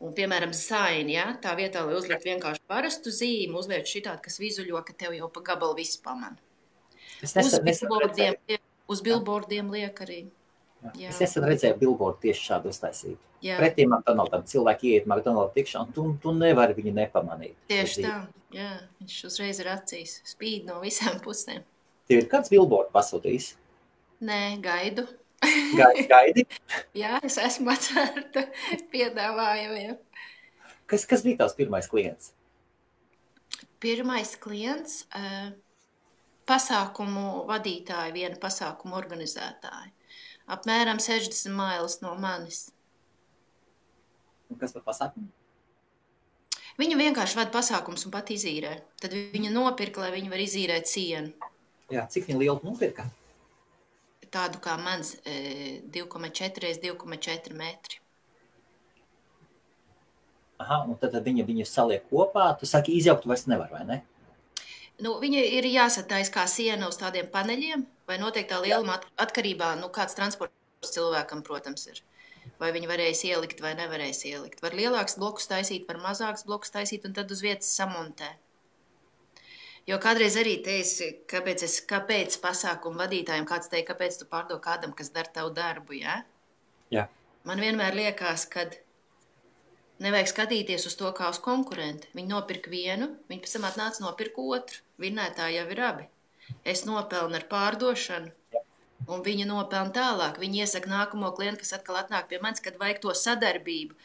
Un, piemēram, saini, ja? Tā vietā, lai uzliek vienkārši parastu zīmi, uzliek šitādu, kas vizuļo, ka tev jau pa gabalu viss pamana. Uz billboardiem liek arī. Jā. Es nesen redzēju billboardu tieši šādu uztaisītu. Pretī McDonaldam cilvēki ieiet McDonalda tikšā, un tu nevari viņu nepamanīt. Tieši tā, jā. Viņš uzreiz ir acīs, spīd no visām pusēm. Tev ir kāds billboard pasūtījis? Nē, gaidu. Gaidi? Jā, es esmu atvērta piedāvājumiem. Kas bija tavs pirmais klients? Pirmais klients? Pasākumu vadītāji, viena pasākumu organizētāji. Apmēram 60 mailas no manis. Un kas par pasākumu? Viņa vienkārši vada pasākums un pat izīrē. Tad viņa nopirka, lai viņa var izīrēt sienu. Jā, cik viņa lielu nopirka? Tādu kā mans 2,4 x 2,4 metri. Aha, un tad viņu saliek kopā. Tu saki, izjaukt vairs nevar, vai ne? Nu, viņa ir jāsatais kā siena uz tādiem paneļiem, vai noteiktā lieluma atkarībā, kāds transports cilvēkam, protams, ir. Vai viņi varēs ielikt vai nevarēs ielikt. Var lielāks blokus taisīt, var mazāks blokus taisīt un tad uz vietas samontē. Jo kādreiz arī teici, kāpēc pasākumu vadītājiem kāds teica, kāpēc tu pārdod kādam, kas dara tavu darbu, jā? Jā. Man vienmēr liekas, kad nevajag skatīties uz to kā uz konkurentu. Viņi nopirka vienu, viņi pēc tam atnāca nopirka otru. Vinnētāji jau ir abi. Es nopelnu ar pārdošanu, un viņa nopelna tālāk. Viņi iesaka nākamo klientu, kas atkal atnāk pie manis, kad vajag to sadarbību.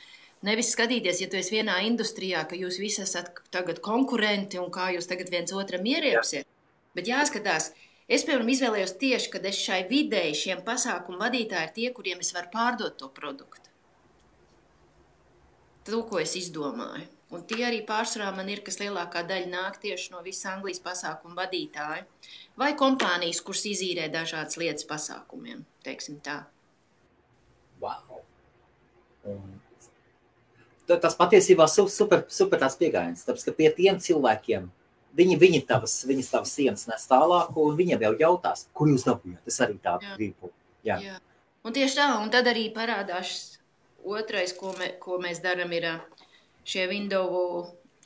Nevis skatīties, ja tu esi vienā industrijā, ka jūs visi esat tagad konkurenti un kā jūs tagad viens otram ieriepsiet. Bet jāskatās, es, piemēram, izvēlējos tieši, kad es šai videi šiem pasākumu vadītāji ir tie, kuriem es varu pārdot to produktu. To, ko es izdomāju. Un tie arī pārsvarā man ir, kas lielākā daļa nāk tieši no visas Anglijas pasākumu vadītāju. Vai kompānijas, kuras izīrē dažādas lietas pasākumiem, teiksim tā. Wow! Tas patiesībā super tās piegājiens, tāpēc, ka pie tiem cilvēkiem viņas tavas sienas nes tālāk, un viņiem jau jautās, kur jūs dabūjāt. Es arī tādu gribu. Jā. Un tieši tā, un tad arī parādās otrais, ko mēs darām, ir šie window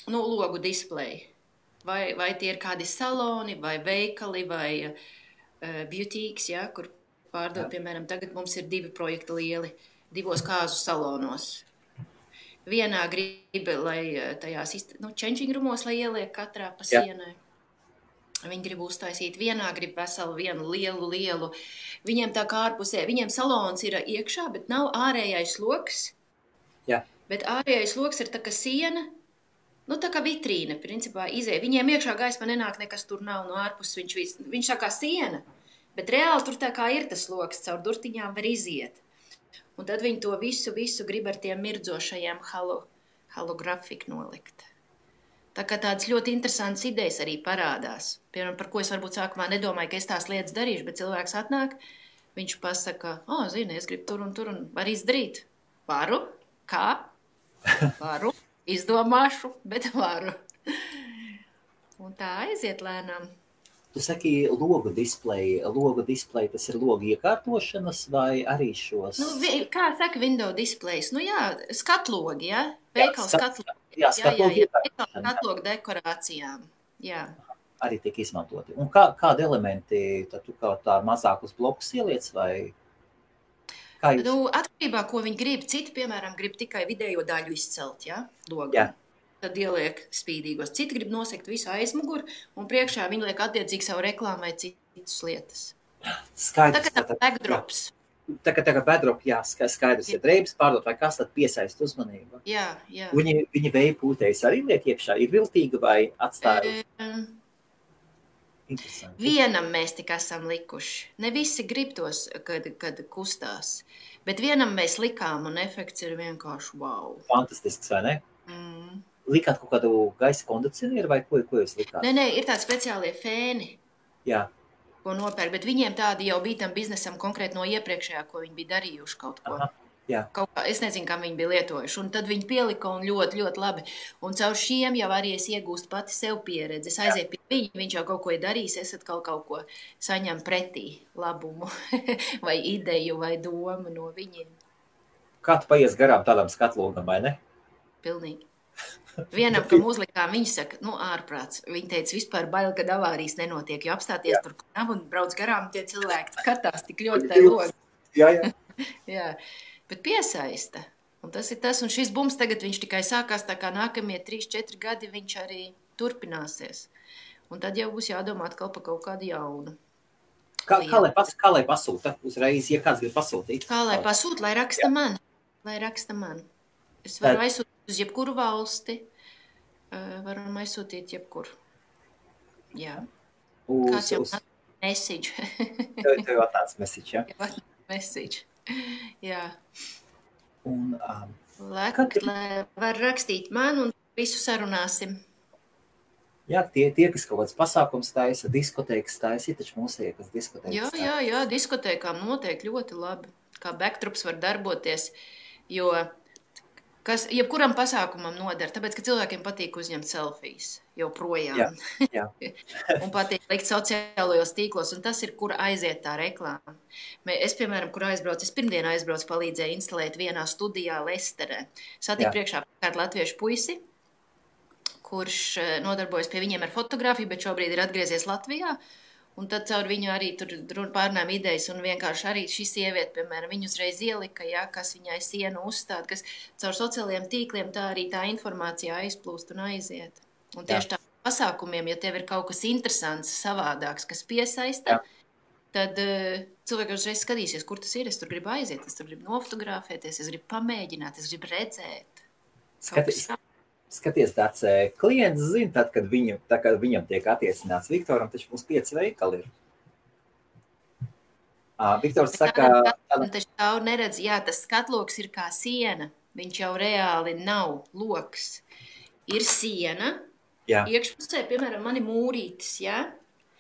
logu displeji. Vai tie ir kādi saloni, vai veikali, vai beautīks, ja, kur pārdod, piemēram, tagad mums ir 2 projekti lieli, 2 kāzu salonos. Vienā grib, lai tajās changing roomos, lai ieliek katrā pa sienai. Viņi grib uztaisīt, vienā grib veselu vienu lielu. Viņiem tā kā ārpusē, viņiem salons ir iekšā, bet nav ārējais loks. Jā. Bet ārējais loks ir tā kā siena, tā kā vitrīne, principā izēja. Viņiem iekšā gaisma nenāk, nekas tur nav no ārpus, viņš tā kā siena, bet reāli tur tā kā ir tas loks, caur durtiņām var iziet. Un tad viņi to visu grib ar tiem mirdzošajiem holografiku nolikt. Tā kā tādas ļoti interesantas idejas arī parādās. Piemēram, par ko es varbūt sākumā nedomāju, ka es tās lietas darīšu, bet cilvēks atnāk, viņš pasaka, zini, es gribu tur un var izdarīt. Varu? Kā? Varu. Izdomāšu, bet varu. Un tā aiziet lēnām. Tu saki logu displeji, tas ir logu iekārtošanas vai arī šos? Kā saka window displejs? Skatlogi, ja? Veikals skatlogi. Jā, skatlogi iekārtošana. Skatlogu dekorācijām, jā. Arī tiek izmantoti. Un kādi elementi, tad tu kā tā mazākus blokus ieliec vai? Atkarībā, ko viņi grib. Citi, piemēram, grib tikai vidējo daļu izcelt, ja? Logu. Jā. Tad ieliek spīdīgos. Citi grib nosegt visu aizmuguru, un priekšā viņi liek attiecīgi savu reklāmu vai citas lietas. Skaidrs. Tā kā tā backdrops. Tā kā bedrop, jā, skaidrs, ja drēbes pārdot vai kas, tad piesaist uzmanību. Jā. Viņa vēja pūtējas arī liek iekšā, ir viltīga vai atstāja? Interesanti. Vienam mēs tik esam likuši. Ne visi grib tos, kad kustās. Bet vienam mēs likām, un efekts ir vienkārši wow. Fantastisks, vai ne? Likāt kaut kādu gaisa kondicionieru vai ko jūs likāt? Nē, ir tādi speciālie fēni, Jā. ko nopērk, bet viņiem tādi jau bija tam biznesam konkrēti no iepriekšējā, ko viņi bija darījuši kaut ko. Aha, jā. Kaut kā, es nezinu, kā viņi bija lietojuši, un tad viņi pielika un ļoti, ļoti labi. Un caur šiem jau arī es iegūstu pati sev pieredzi. Es aizieju pie viņa, viņš jau kaut ko ir darījis, es atkal kaut ko saņem pretī labumu vai ideju vai domu no viņiem. Kā tu paies garām tādam skatlogam, vai ne? Pilnīgi. Vienam, kam uzlikām, viņi saka, ārprāts. Viņi teica, vispār bail, kad avārijas nenotiek, jo apstāties tur nav un brauc garām, tie cilvēki skatās tik ļoti tai logi. Jā. Jā, bet piesaista. Un tas ir tas, un šis bums tagad viņš tikai sākās, tā kā nākamie 3-4 gadi viņš arī turpināsies. Un tad jau būs jādomā atkal par kaut kādu jaunu. Kā lai pasūta uzreiz, ja kāds grib pasūtīt? Kā lai pasūta, lai raksta man. Es varu aizsūtīt uz jebkuru valsti. Varam aizsūtīt jebkur. Jā. Kāds jau message. Tev jau tāds message, jā? Message. Jā. Un, lai var rakstīt man un visu sarunāsim. Jā, tie, kas kaut kāds pasākums taisa, diskotēkas taisa, ir taču mūsiekas diskotēkas. Jā, diskotēkām noteikti ļoti labi. Kā backdrops var darboties, jo jebkuram pasākumam nodara, tāpēc, ka cilvēkiem patīk uzņemt selfijas joprojām. Jā. Un patīk likt sociālajos tīklos, un tas ir, kur aiziet tā reklāma. Es, piemēram, kur aizbraucu, es pirmdien aizbraucu, palīdzēju instalēt vienā studijā Lesterē. Satiku priekšā kādu latviešu puisi, kurš nodarbojas pie viņiem ar fotografiju, bet šobrīd ir atgriezies Latvijā. Un tad caur viņu arī tur pārnām idejas, un vienkārši arī šī sieviete, piemēram, viņu uzreiz ielika, kas viņai sienu uzstāda, kas caur sociālajiem tīkliem tā arī tā informācija aizplūst un aiziet. Un tieši tā pasākumiem, ja tev ir kaut kas interesants, savādāks, kas piesaista, tad cilvēki uzreiz skatīsies, kur tas ir, es tur gribu aiziet, es tur gribu nofotografēties, es gribu pamēģināt, es gribu redzēt. Skaties, tāds klients zina, tad, kad viņam tiek attiecināts Viktoram, taču mums 5 veikali ir. Viktors saka... Taču tā neredz, tas skatloks ir kā siena, viņš jau reāli nav loks. Ir siena, iekšpusē, piemēram, mani mūrītis,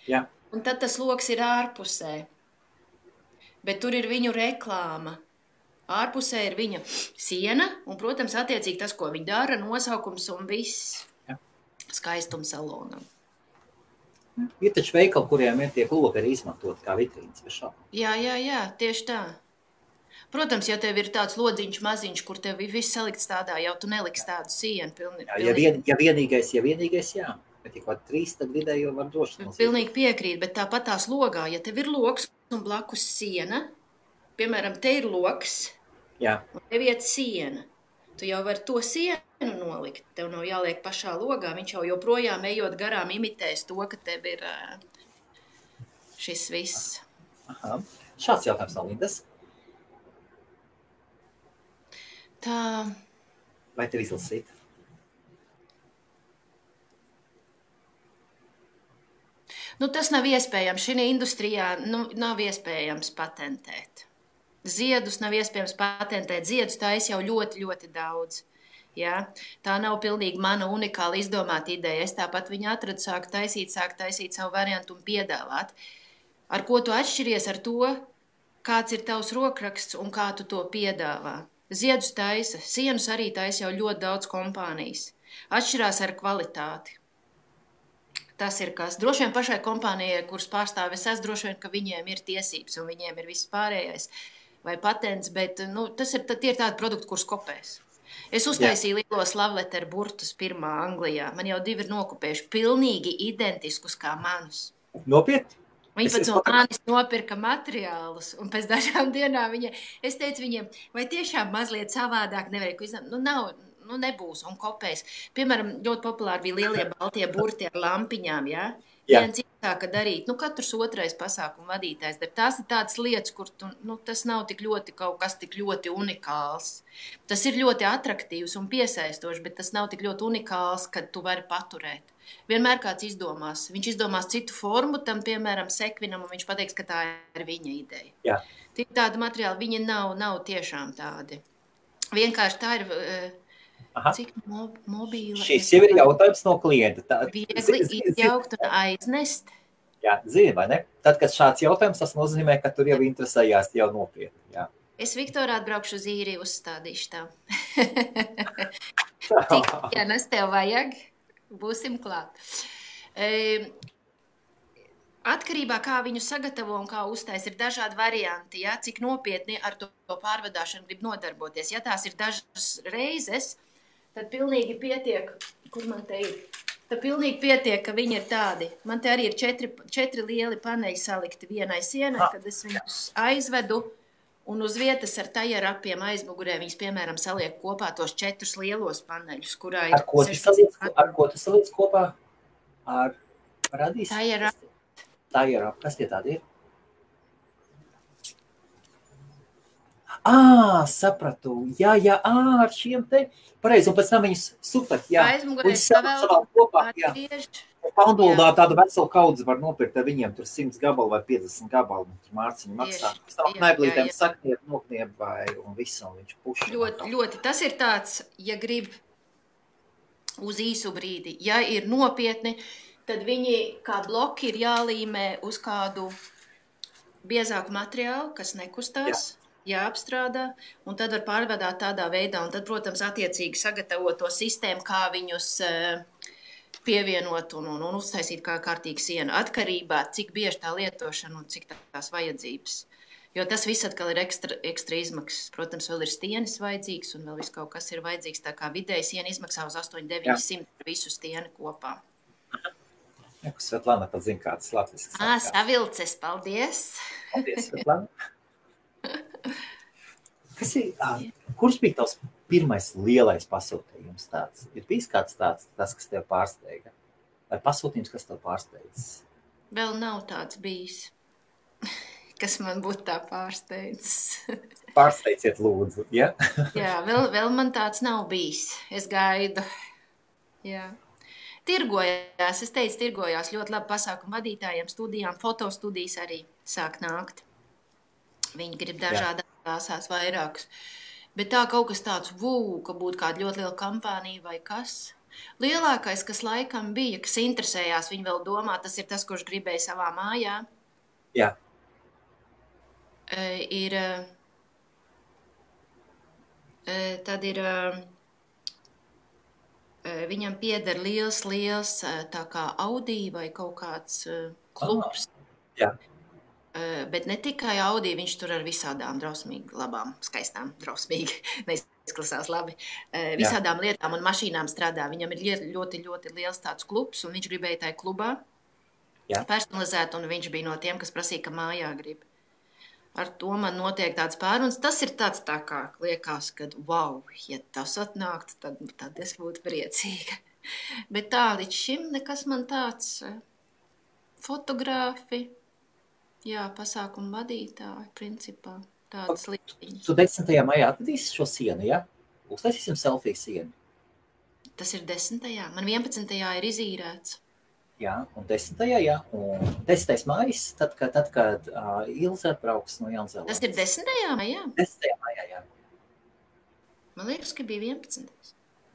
Jā. Un tad tas loks ir ārpusē, bet tur ir viņu reklāma. Ārpusē ir viņa siena, un, protams, attiecīgi tas, ko viņa dara, nosaukums un viss skaistums salonam. Ir taču veikali, kuriem ir tiek logi arī izmantot kā vitrīnas bez šāpām. Jā, tieši tā. Protams, ja tev ir tāds lodziņš maziņš, kur tev ir viss salikts tādā, jau tu neliks tādu sienu. Pilnīgi. Ja vienīgais, jā. Bet ja kaut 3, tad vidēji jau var droši. Pilnīgi piekrīt, bet tāpat tās logā, ja tev ir logs un blakus siena, piemēram, te ir logs, un tev iet siena. Tu jau vari to sienu nolikt. Tev nav jāliek pašā logā. Viņš jau joprojām ejot garām imitēs to, ka tev ir šis viss. Aha. Šāds jautājums no Lindas. Tā. Vai tev izlasīt? Tas nav iespējams. Šī industrijā nav iespējams patentēt. Ziedus nav iespējams patentēt. Ziedus taisa jau ļoti, ļoti daudz. Ja? Tā nav pilnīgi mana unikāla izdomāta ideja. Es tāpat viņu atradu, sāku taisīt savu variantu un piedāvāt. Ar ko tu atšķiries ar to, kāds ir tavs rokraksts un kā tu to piedāvā? Ziedus taisa, sienus arī taisa jau ļoti daudz kompānijas. Atšķirās ar kvalitāti. Tas ir kas. Droši vien pašai kompānijai, kuras pārstāvis es, droši vien, ka viņiem ir tiesības un viņiem ir viss pārējais vai patents, bet tie ir tādi produkti, kurus kopēs. Es uztaisīju lielos lavleteru burtus pirmā Anglijā. Man jau 2 ir nokopējuši pilnīgi identiskus kā manus. Nopietni? Viņi pat no manis nopirka materiālus, un pēc dažām dienām es teicu viņiem, vai tiešām mazliet savādāk nevarēja izdarīt? Nebūs un kopēs. Piemēram, ļoti populāri bija lielie baltie burti ar lampiņām, viens iesāka darīt, katrs otrais pasākumu vadītājs, bet tās ir tādas lietas, kur tas nav tik ļoti kaut kas tik ļoti unikāls. Tas ir ļoti atraktīvs un piesaistošs, bet tas nav tik ļoti unikāls, kad tu vari paturēt. Vienmēr kāds izdomās. Viņš izdomās citu formu tam, piemēram, sekvinam, un viņš pateiks, ka tā ir viņa ideja. Jā. Tāda materiāla, viņi nav tiešām tādi. Vienkārši tā ir... Cik mobīla... Šis jau ir jautājums no klienta. Viegli izjaukt un aiznest. Jā, zini, vai ne? Tad, kad šāds jautājums, tas nozīmē, ka tur jau interesējās jau nopietni. Jā. Es Viktorā atbraukšu uz īriju, uzstādīšu tā. Ja nes tev vajag, būsim klāt. Atkarībā, kā viņu sagatavo un kā uztais, ir dažādi varianti, ja? Cik nopietni ar to pārvadāšanu grib nodarboties. Ja tās ir dažas reizes, tad pilnīgi pietiek, kur man te ir, tad pilnīgi pietiek, ka viņi ir tādi. Man te arī ir 4 lieli paneļi salikti vienai sienai, kad es viņus aizvedu un uz vietas ar tajerapiem aizmugurē viņus, piemēram, saliek kopā tos 4 lielos paneļus, kurā ir... Ar ko tu saliec kopā? Ar radīs? Tajerap. Kas tie tādi ir? Sapratu. Jā, ar šiem te. Pareizi, un pēc tam viņus super, jā. Aizmugurē savēl kopā, jā. Panduldā tādu veselu kaudzi var nopirkt ar viņiem, tur 100 gabalu vai 50 gabalu, tur Mārciņu maksā. Neblītēm sakniet, nokniep vai un visu, un viņš puši. Ļoti. Tas ir tāds, ja grib uz īsu brīdi. Ja ir nopietni, tad viņi kā bloki ir jālīmē uz kādu biezāku materiālu, kas nekustās. Jāapstrādā, un tad var pārvadāt tādā veidā, un tad, protams, attiecīgi sagatavot to sistēmu, kā viņus pievienot un uztaisīt kā kārtīgu sienu, atkarībā, cik bieži tā lietošana un cik tās vajadzības. Jo tas viss atkal ir ekstra izmaksas. Protams, vēl ir stienis vajadzīgs, un vēl viss kaut kas ir vajadzīgs, tā kā vidēji siena izmaksā uz 800–900 visu stieni kopā. Svetlana pat zina, kāds latvisks. Savilces, paldies! Paldies, Svetlana! Kurš bija tavs pirmais lielais pasūtījums tāds? Ir bijis kāds tāds, tas, kas tev pārsteiga? Vai pasūtījums, kas tev pārsteidzis? Vēl nav tāds bijis, kas man būtu tā pārsteidzis. Pārsteidziet lūdzu, ja? Jā, vēl man tāds nav bijis. Es gaidu. Jā. Tirgojās ļoti labi pasākumu vadītājiem, studijām, fotostudijas arī sāk nākt. Viņi grib dažādās krāsās vairākus. Bet tā kaut kas tāds, ka būtu kāda ļoti liela kampānija vai kas. Lielākais, kas laikam bija, kas interesējās, viņi vēl domā, tas ir tas, kurš gribēja savā mājā. Jā. Tad ir, viņam pieder liels, tā kā Audi vai kaut kāds klubs. Jā. Bet ne tikai Audi, viņš tur ar visādām drausmīgi labām, skaistām, drausmīgi, neizklasās labi, visādām lietām un mašīnām strādā. Viņam ir ļoti, ļoti liels tāds klubs, un viņš gribēja tajā klubā personalizēt, un viņš bija no tiem, kas prasīja, ka mājā grib. Ar to man notiek tāds pāruns. Tas ir tāds tā kā liekas, ka, ja tas atnāktu, tad es būtu priecīga. Bet tā līdz šim nekas man tāds fotogrāfi. Jā, pasākumu vadītāji, principā, tādas lietiņas. Tu 10. maijā atvedīsi šo sienu, ja? Uztaisīsim selfiju sienu. Tas ir 10. Man 11. ir izīrēts. Jā, un 10. jā. Un 10. maijs, tad, kad Ilze atbrauks no Jaunzēlandes. Tas ir 10. maijā? 10. maijā, jā. Man liekas, ka bija 11.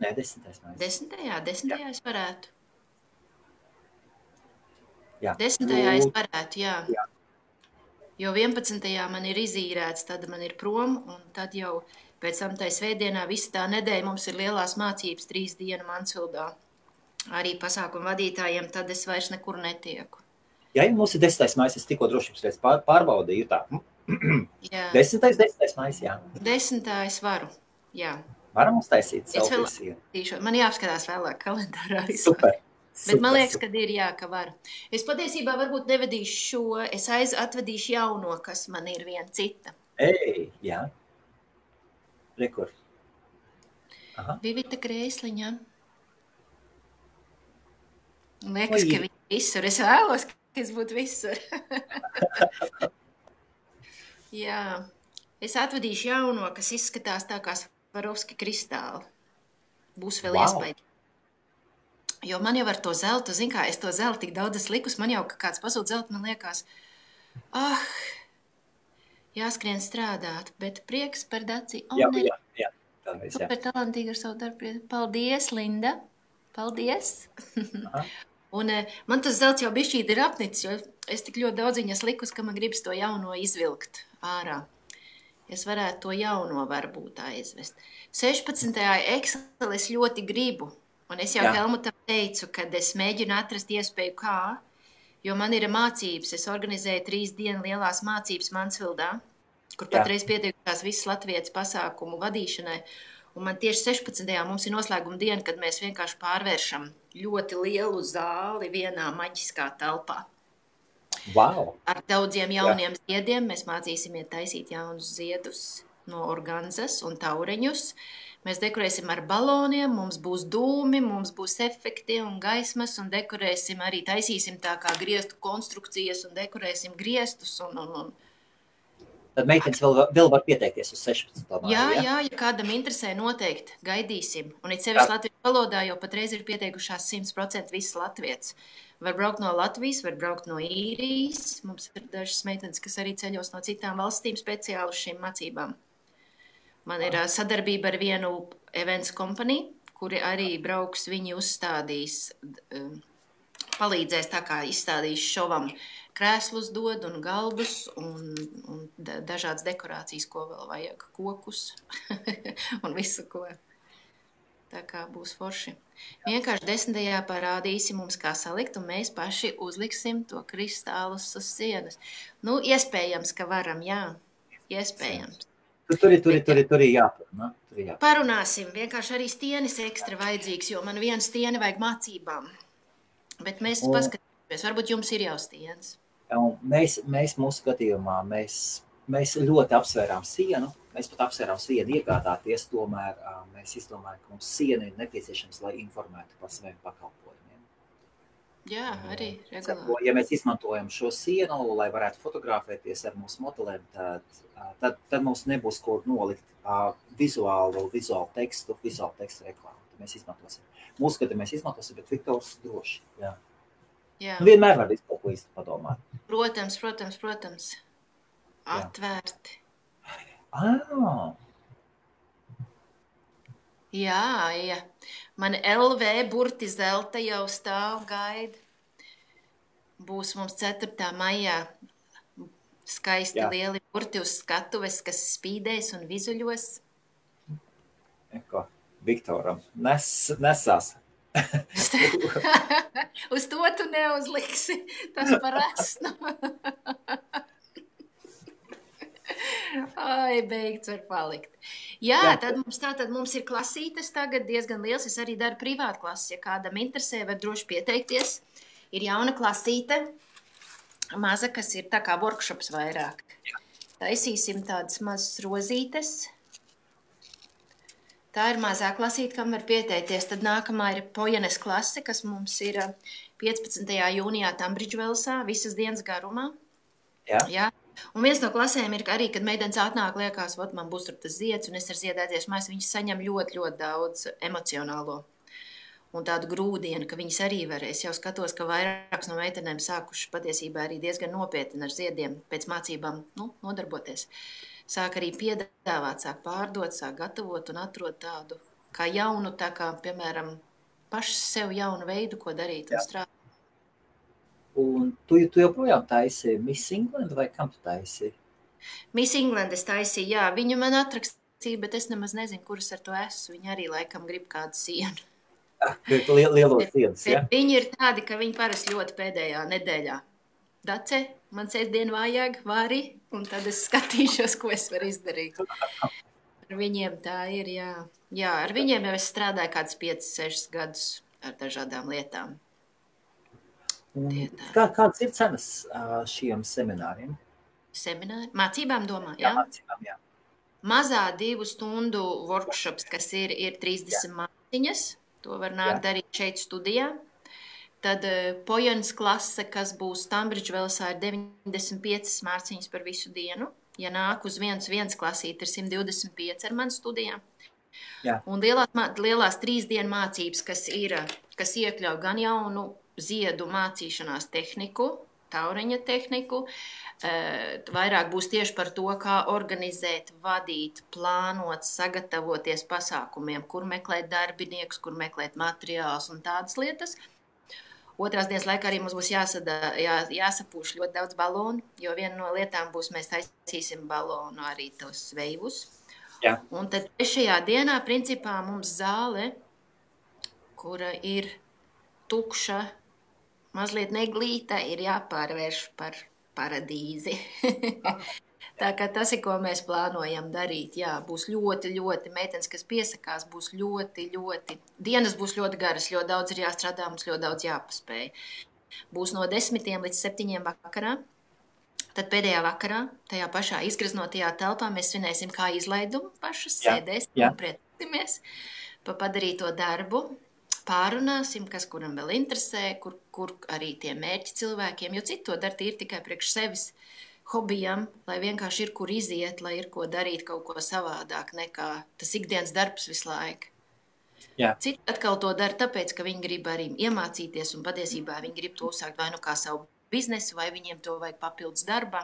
Nē, 10. maijā. 10. es varētu. Jā. 10. es varētu, jā. Jo 11. man ir izīrēts, tad man ir prom, un tad jau pēc tam tai svētdienā visu tā nedēļa mums ir lielās mācības 3 dienu Mansvildā. Arī pasākumu vadītājiem, tad es vairs nekur netieku. Jā, mums ir 10. maijs, es tikko drošības pēc pārbaudīju tā. Jā. 10. maijs, jā. 10. es varu, jā. Varam uztaisīt selfiju sienu. Man jāapskatās vēlāk kalendārā. Super. Bet man liekas, ka ir ka var. Es patiesībā varbūt nevedīšu šo, es atvedīšu jauno, kas man ir viena cita. Jā. Rekur. Vivita Krēsliņa. Liekas, ka viņi visur. Es vēlos, ka es būtu visur. Jā. Es atvadīšu jauno, kas izskatās tā kā Swarovski kristāli. Būs vēl iespēja. Jo man jau ar to zeltu, zin kā, es to zeltu tik daudz esmu likus, man jau kāds pasūta zeltu, man liekas, jāskrien strādāt, bet prieks par Daci. Jā. Super talantīga ar savu darbu. Paldies, Linda. Paldies. Un man tas zelts jau bišķīt ir apnicis, jo es tik ļoti daudz viņas likus, ka man gribas to jauno izvilkt ārā. Es varētu to jauno varbūt aizvest. 16. Excel es ļoti gribu. Un es jau Helmutam teicu, kad es mēģinu atrast iespēju kā, jo man ir mācības. Es organizēju 3 dienu lielās mācības Mansvildā, kur patreiz pieteikušās visas Latvijas pasākumu vadīšanai. Un man tieši 16. mums ir noslēguma diena, kad mēs vienkārši pārvēršam ļoti lielu zāli vienā maģiskā telpā. Wow. Ar daudziem jauniem ziediem mēs mācīsimies taisīt jaunus ziedus no organzas un taureņus. Mēs dekorēsim ar baloniem, mums būs dūmi, mums būs efekti un gaismas, un dekorēsim arī, taisīsim tā kā griestu konstrukcijas un dekorēsim griestus. Tad meitenes vēl var pieteikties uz 16. māju, ja kādam interesē, noteikti gaidīsim. Un it sevišķi latviešu valodā jau patreiz ir pieteikušās 100% visas latvietas. Var braukt no Latvijas, var braukt no Īrijas. Mums ir dažas meitenes, kas arī ceļos no citām valstīm speciāli uz šīm mācībām. Man ir sadarbība ar vienu events kompaniju, kuri arī brauks, viņi uzstādīs, palīdzēs tā kā izstādīs šovam krēslus dod un galdus un dažādas dekorācijas, ko vēl vajag, kokus un visu, ko. Tā kā būs forši. Vienkārši 10. parādīsi mums, kā salikt, un mēs paši uzliksim to kristālus uz sienas. Nu, iespējams, ka varam, jā. Iespējams. Tur ir jāparunā. Parunāsim. Vienkārši arī stienis ekstra vajadzīgs, jo man viena stieni vajag mācībām. Bet mēs paskatīsimies. Varbūt jums ir jau stienis. Mēs mūsu skatījumā, mēs ļoti apsvērām sienu. Mēs pat apsvērām sienu iegādāties, tomēr mēs izdomājam, ka mums siena ir nepieciešams, lai informētu par saviem pakalpojumiem. Jā, arī regulāri. Ja mēs izmantojam šo sienu, lai varētu fotografēties ar mūsu modelēm, tad mums nebūs ko nolikt vizuālu tekstu reklāmu. Mēs izmantosim. Mūsu skatu mēs izmantosim, bet Viktors droši. Jā. Vienmēr var visu kaut ko īsti padomāt. Protams. Atvērti. Jā. Man LV burti zelta jau stāv gaida. Būs mums 4. maijā skaisti lieli burti uz skatuves, kas spīdēs un vizuļos. Viktoram nesās. Uz to tu neuzliksi. Tas par esnu. Ai, beigts var palikt. Jā, tad mums ir klasītes tagad diezgan liels. Es arī daru privātu klases. Ja kādam interesē, var droši pieteikties. Ir jauna klasīte, maza, kas ir tā kā workshops vairāk. Taisīsim tādas mazas rozītes. Tā ir mazā klasīte, kam var pieteikties. Tad nākamā ir Pojanes klase, kas mums ir 15. jūnijā Tambridžvelsā, visas dienas garumā. Jā. Un viens no klasēm ir arī, kad meitenes atnāk, liekas, man būs tur tas zieds, un es ar ziedēties mājas, viņas saņem ļoti, ļoti daudz emocionālo un tādu grūdienu, ka viņas arī varēs. Jau skatos, ka vairākas no meitenēm sākuši patiesībā arī diezgan nopietni ar ziediem pēc mācībām nodarboties. Sāk arī piedāvāt, sāk pārdot, sāk gatavot un atrod tādu kā jaunu, tā kā, piemēram, paši sev jaunu veidu, ko darīt un strādāt. Un tu joprojām taisi Miss England vai kam tu taisi? Miss England es taisīju, jā. Viņu man atrakstīja, bet es nemaz nezinu, kuras ar to esmu. Viņa arī laikam grib kādu sienu. Lielo sienas, ja? Viņi ir tādi, ka viņi parasti ļoti pēdējā nedēļā. Dace, man sēsdien vajag, vari, un tad es skatīšos, ko es varu izdarīt. Ar viņiem tā ir, jā. Jā, ar viņiem jau es strādāju kāds 5-6 gadus ar dažādām lietām. Kādas ir cenas šiem semināriem? Semināri? Mācībām domā, jā? Mācībām, jā. Mazā 2 stundu workshops, kas ir 30 māciņas. To var nākt darīt šeit studijā. Tad Pojans klase, kas būs Tambridge Velsā, ir 95 mārciņas par visu dienu. Ja nāk uz viens klasīt, ir 125 ar manu studijām. Jā. Un lielās 3 dienu mācības, kas iekļauj gan jaunu ziedu mācīšanās tehniku, tauriņa tehniku, vairāk būs tieši par to, kā organizēt, vadīt, plānot, sagatavoties pasākumiem, kur meklēt darbiniekus, kur meklēt materiālus un tādas lietas. Otrās dienas laikā arī mums būs jāsapūš ļoti daudz balonu, jo viena no lietām būs, mēs taisīsim balonu arī tos veivus. Jā. Un tad trešajā dienā, principā, mums zāle, kura ir tukša, mazliet neglīta, ir jāpārvērš par paradīzi. Tā kā tas ir, ko mēs plānojam darīt. Jā, būs ļoti, ļoti meitenes, kas piesakās, būs ļoti, dienas būs ļoti garas, ļoti daudz ir jāstrādā, mums ļoti daudz jāpaspēj. Būs no 10 līdz 7 vakarā. Tad pēdējā vakarā, tajā pašā izgraznotajā telpā, mēs svinēsim kā izlaidumu pašas, sēdēsim un priecāsimies pa padarīto darbu. Pārunāsim, kas kuram vēl interesē, kur arī tie mērķi cilvēkiem, jo citu to dara tīri tikai priekš sevis hobijam, lai vienkārši ir kur iziet, lai ir ko darīt kaut ko savādāk nekā tas ikdienas darbs visu laiku. Jā. Citi atkal to dara tāpēc, ka viņi grib arī iemācīties un patiesībā viņi grib to uzsākt vai nu kā savu biznesu, vai viņiem to vajag papildus darbā.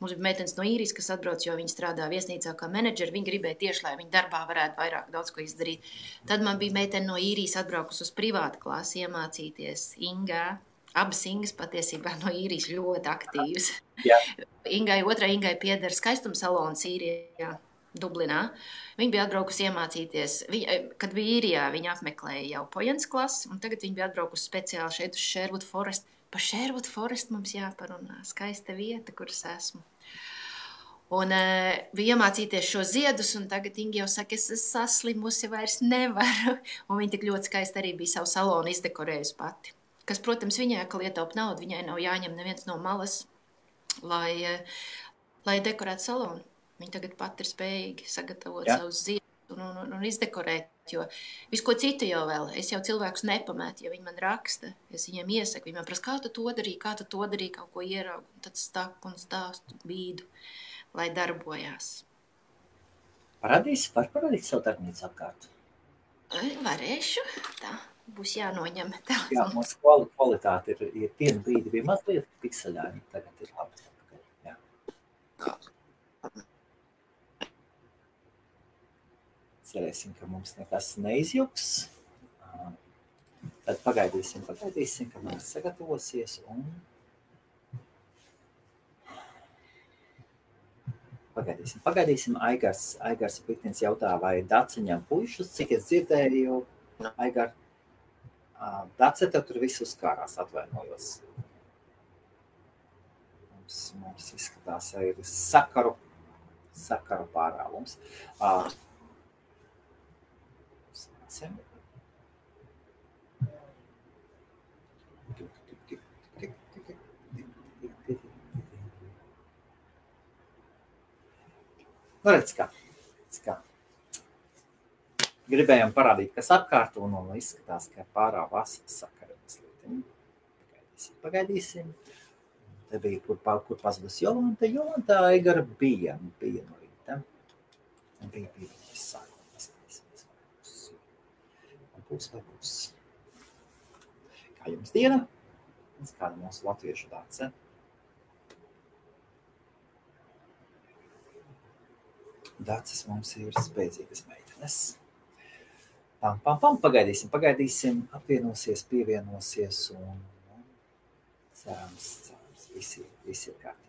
Mums bija meitenes no Īrijas, kas atbrauc, jo viņi strādā viesnīcā kā menedžeri. Viņi gribēja tieši, lai viņi darbā varētu vairāk daudz ko izdarīt. Tad man bija meitene no Īrijas atbraukus uz privātu klasi iemācīties Ingā. Abas Ingas patiesībā no Īrijas ļoti aktīvas. Otrai Ingai pieder skaistuma salons Īrijā, Dublinā. Viņa bija atbraukusi iemācīties. Kad bija Īrijā, viņa apmeklēja jau Pojans klasi, un tagad viņa bija atbraukusi speciāli šeit uz Sherwood Forest. Pa Sherwood Forest mums jāparunā. Skaista vieta, kuras esmu. Un bija iemācīties šo ziedus, un tagad Inga jau saka, es saslimusi, vairs nevaru. Un viņa tik ļoti skaisti arī bija savu salonu izdekorējusi pati. Kas, protams, viņai, ka lietaup naudu, viņai nav jāņem neviens no malas, lai dekorētu salonu. Viņa tagad pat ir spējīgi sagatavot savus ziedus un izdekorēt, jo visu ko citu jau vēl. Es jau cilvēkus nepamētu, ja viņi man raksta. Es viņiem iesaku, viņi man prasa, kā tu to darīji, kaut ko ieraugu. Tad staku un stāstu bīdu, lai darbojās. Var parādīt savu darbnīcu apkārt? Varēšu, tā. Būs jānoņem tā. Jā, mums kvalitāte ir vienu brīdi bija mazliet pikseļāņi, tagad ir labi. Jā. Cerēsim, ka mums nekas neizjuks. Tad pagaidīsim, ka mēs sagatavosies un pagaidīsim. Aigars Piktins jautā, vai Daciņam puišus, cik es dzirdēju, Aigar, Dace, tev tur viss uzkārās, atvainojos. Mums izskatās, ir sakaru pārāvums. Nu, redz kā. Gribējām parādīt, kas apkārt, un izskatās, ka pārāvās sakara mazliet. Pagaidīsim. Te bija, kur pazudus Jolanta. Jolanta Aigara bija no rīta. Bija viņas sākuma. Būs. Kā jums diena? Kāda mūsu latviešu Dace? Daces mums ir spēcīgas meitenes. Pagaidīsim, apvienosies, pievienosies un cerams, visi ir kārtībā.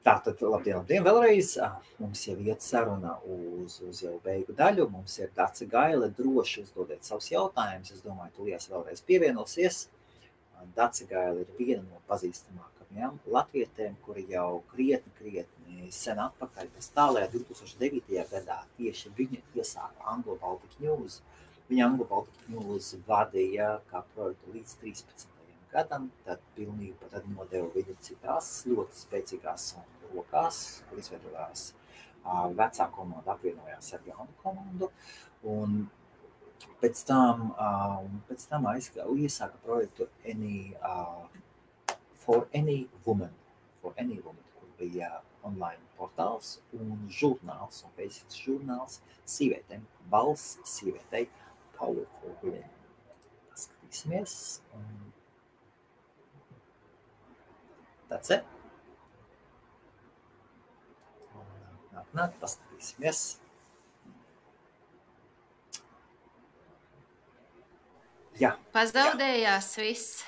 Tātad, labdien vēlreiz. Mums jau iet saruna uz jau beigu daļu. Mums ir Dace Gaile, droši uzdodiet savus jautājumus. Es domāju, Tulijas vēlreiz pievienosies. Dace Gaile ir viena no pazīstamākajām latvietēm, kuri jau krietni sen atpakaļ, pēc tālajā 2009. gadā tieši viņa iesāka Anglo-Baltic News. Viņa Anglo-Baltic News vadīja kā projektu līdz 13. gadam, tad pilnīgi nodeva viņu citās ļoti spēcīgās rokās, kur izveidojās vecā komanda apvienojās ar jaunu komandu. Un Pēc tam iesāka projektu For Any Woman, kur bija online portāls un žurnāls, un beidzot žurnāls sievietēm, balss sievietei, Powerful Women. Skatīsimies. That's it. Nāk, paskatīsimies. Jā. Pazaudējās viss.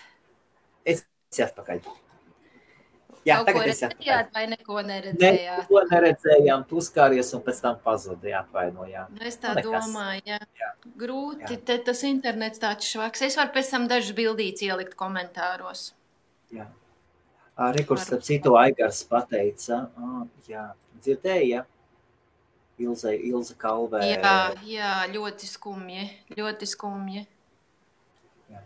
Es atpakaļ. Jā, Kaut ko tagad es atpakaļ. redzējāt vai neko neredzējāt? Neko neredzējām, tu skāries un pēc tam pazudīja, atvainojām. Nu, es tā domāju, jā. Grūti, te tas internets tāds švaks. Es varu pēc tam dažas bildītes ielikt komentāros. Jā. Rekurs, starp citu, Aigars pateica, jā, dzirdēja, Ilze Kalvē. Jā, ļoti skumji. Jā.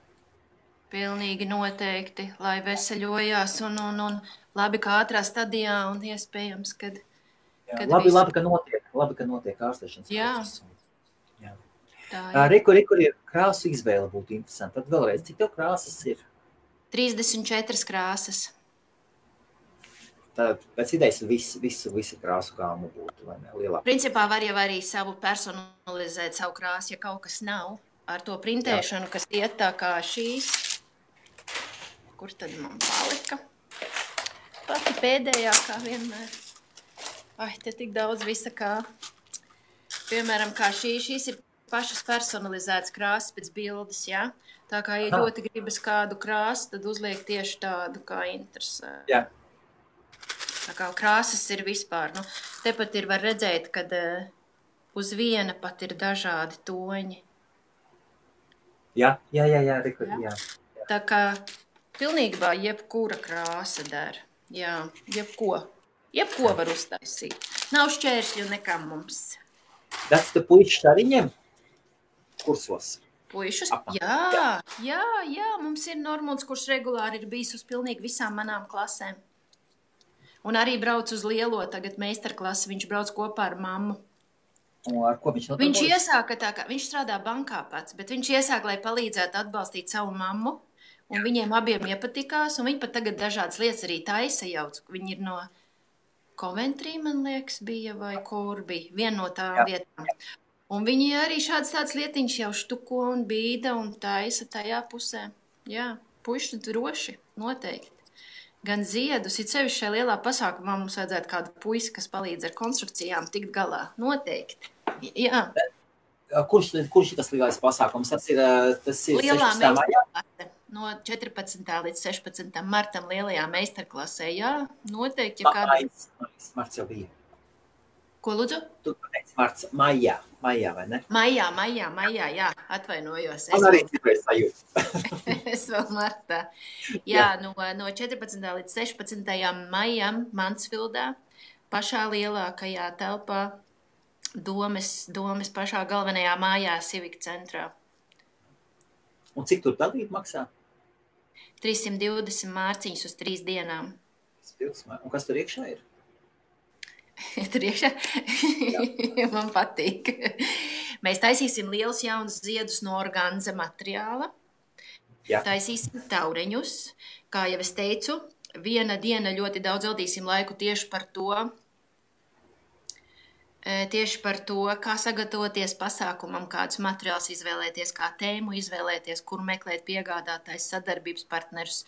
Pilnīgi noteikti, lai veseļojās un labi, kā ātrā stadijā un iespējams, kad Labi, ka notiek ārstēšanas process. Jā. Rekur ir krāsu izvēle būtu interesanti. Tad vēlreiz, cik tev krāsas ir? 34 krāsas. Tad pēc idejas visu krāsu gāmu būtu, vai ne? Lielāk. Principā var jau arī savu personalizēt savu krāsu, ja kaut kas nav. Ar to printēšanu, kas iet tā kā šīs. Kur tad man palika? Pati pēdējā, kā vienmēr. Ai, te tik daudz visa kā. Piemēram, kā šīs ir pašas personalizētas krāsas pēc bildes, jā? Tā kā, ja ļoti gribas kādu krāsu, tad uzliek tieši tādu, kā interesē. Jā. Tā kā krāsas ir vispār. Nu, tepat ir var redzēt, kad uz viena pat ir dažādi toņi. Jā, Rekur, jā. Tā kā pilnībā jebkura krāsa der. Jā, jebko var uztaisīt. Nav šķēršļu nekam mums. Tas te puišas arī ņem kursos? Puišus? Jā, mums ir Normunds, kurš regulāri ir bijis uz pilnīgi visām manām klasēm. Un arī brauc uz lielo tagad meistarklasi, viņš brauc kopā ar mammu. Un ar ko viņš nodarbojas? Viņš iesāka tā kā, viņš strādā bankā pats, bet viņš iesāka, lai palīdzētu atbalstīt savu mammu, un viņiem abiem iepatikās, un viņi pat tagad dažādas lietas arī taisa jauc. Viņi ir no Coventry, man liekas, bija, vai kur bija, viena no tām vietām. Un viņi arī tāds lietiņš jau štuko un bīda un taisa tajā pusē. Jā, puiši droši, noteikti. Gan ziedus, it sevišķi šajā lielā pasākumā mums vajadzētu kādu puisi, kas palīdz ar konstrukcijām tikt galā. Noteikti. Jā. Kurš ir tas lielais pasākums? Tas ir Lielā 16. maijā? No 14. līdz 16. martam lielajā meistarklasē. Jā, noteikti. Ja kāda... Marts jau bija. Ko lūdzu? Tu pateici marts, maijā, vai ne? Maijā, jā, atvainojos. Man arī citreiz sajūt. Es vēl martā. Jā, no 14. līdz 16. maijam Mansfildā, pašā lielākajā telpā, domes pašā galvenajā mājā Civic centrā. Un cik tur dalīt maksā? 320 mārciņas uz 3 dienām. Un kas tur iekšā ir? Tur iekšā? Man patīk. Mēs taisīsim liels jauns ziedus no organza materiāla. Jā. Taisīsim taureņus. Kā jau es teicu, viena diena ļoti daudz veltīsim laiku tieši par to, kā sagatavoties pasākumam, kādus materiālus izvēlēties, kā tēmu izvēlēties, kur meklēt piegādātājs, sadarbības partnerus,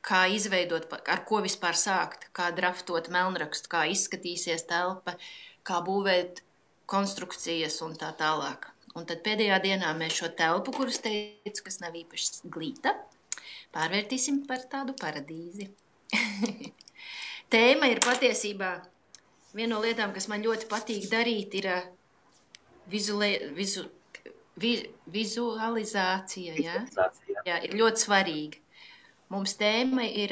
kā izveidot, ar ko vispār sākt, kā draftot melnrakstu, kā izskatīsies telpa, kā būvēt konstrukcijas un tā tālāk. Un tad pēdējā dienā mēs šo telpu, kuras teicu, kas nav īpaši glīta, pārvērtīsim par tādu paradīzi. Tēma ir patiesībā viena no lietām, kas man ļoti patīk darīt, ir vizualizācija. Jā, ir ļoti svarīga. Mums tēma ir,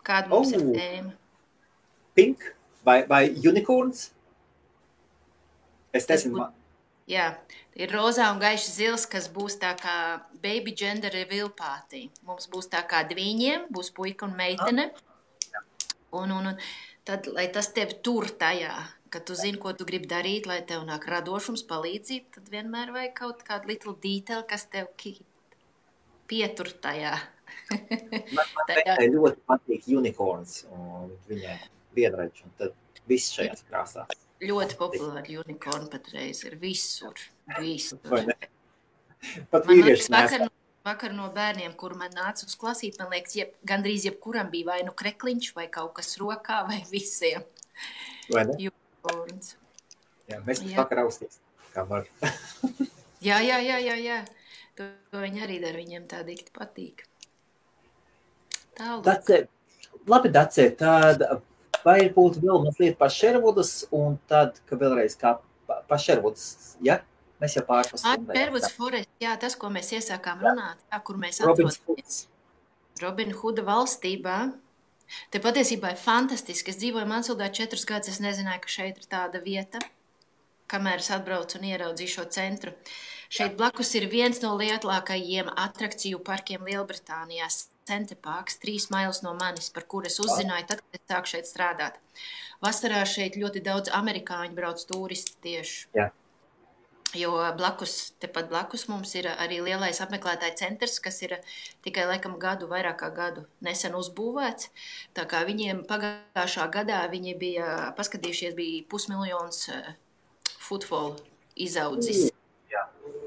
kāda mums ir tēma? Pink vai unicorns? Es nezinu. Jā, ir rozā un gaiši zils, kas būs tā kā baby gender reveal party. Mums būs tā kā dviņiem, būs puika un meitene. Un tad, lai tas tevi tur tajā, kad tu zini, ko tu gribi darīt, lai tev nāk radošums, palīdzība, tad vienmēr vajag kaut kādu little detail, kas tev pietur tajā. Man teikai ļoti patīk unicorns un viņai vienreič, un tad viss šajās krāsās. Ļoti populāri unicorn patreiz ir visur. Vai ne? Pat Man vīrieši liekas, vakar no bērniem, kur man nāca uz klasīt, man liekas, gandrīz jebkuram bija vai nu krekliņš, vai kaut kas rokā, vai visiem. Vai ne? Unicorns. Jā, mēs pat vakar austīs, kā var. Jā. To viņi arī dara, viņiem tā dikti patīk. Tālāk. Dace, labi, Dace, tad vai būtu vēl mazliet par Sherwoodas, un tad, ka vēlreiz kā par Sherwoodas, ja? Mēs jau pārpas stundē. Sherwoods Forest, jā, tas, ko mēs iesākām runāt, jā, kur mēs Robins atrodamies Robin Hooda valstībā. Te patiesībā ir fantastiski. Es dzīvoju Mansildā 4 gadus, es nezināju, ka šeit ir tāda vieta, kamēr es atbraucu un ieraudzīju šo centru. Šeit blakus ir viens no lielākajiem atrakciju parkiem Lielbritānijā, Center Parks, 3 mailes no manis, par kur es uzzināju tad, kad es sāku šeit strādāt. Vasarā šeit ļoti daudz amerikāņu brauc turisti tieši. Jā. Jo tepat blakus mums ir arī lielais apmeklētāju centrs, kas ir tikai laikam vairāk kā gadu nesen uzbūvēts. Tā kā viņiem pagājušā gadā viņi bija paskatījušies, bija 500,000 footfall izaudzis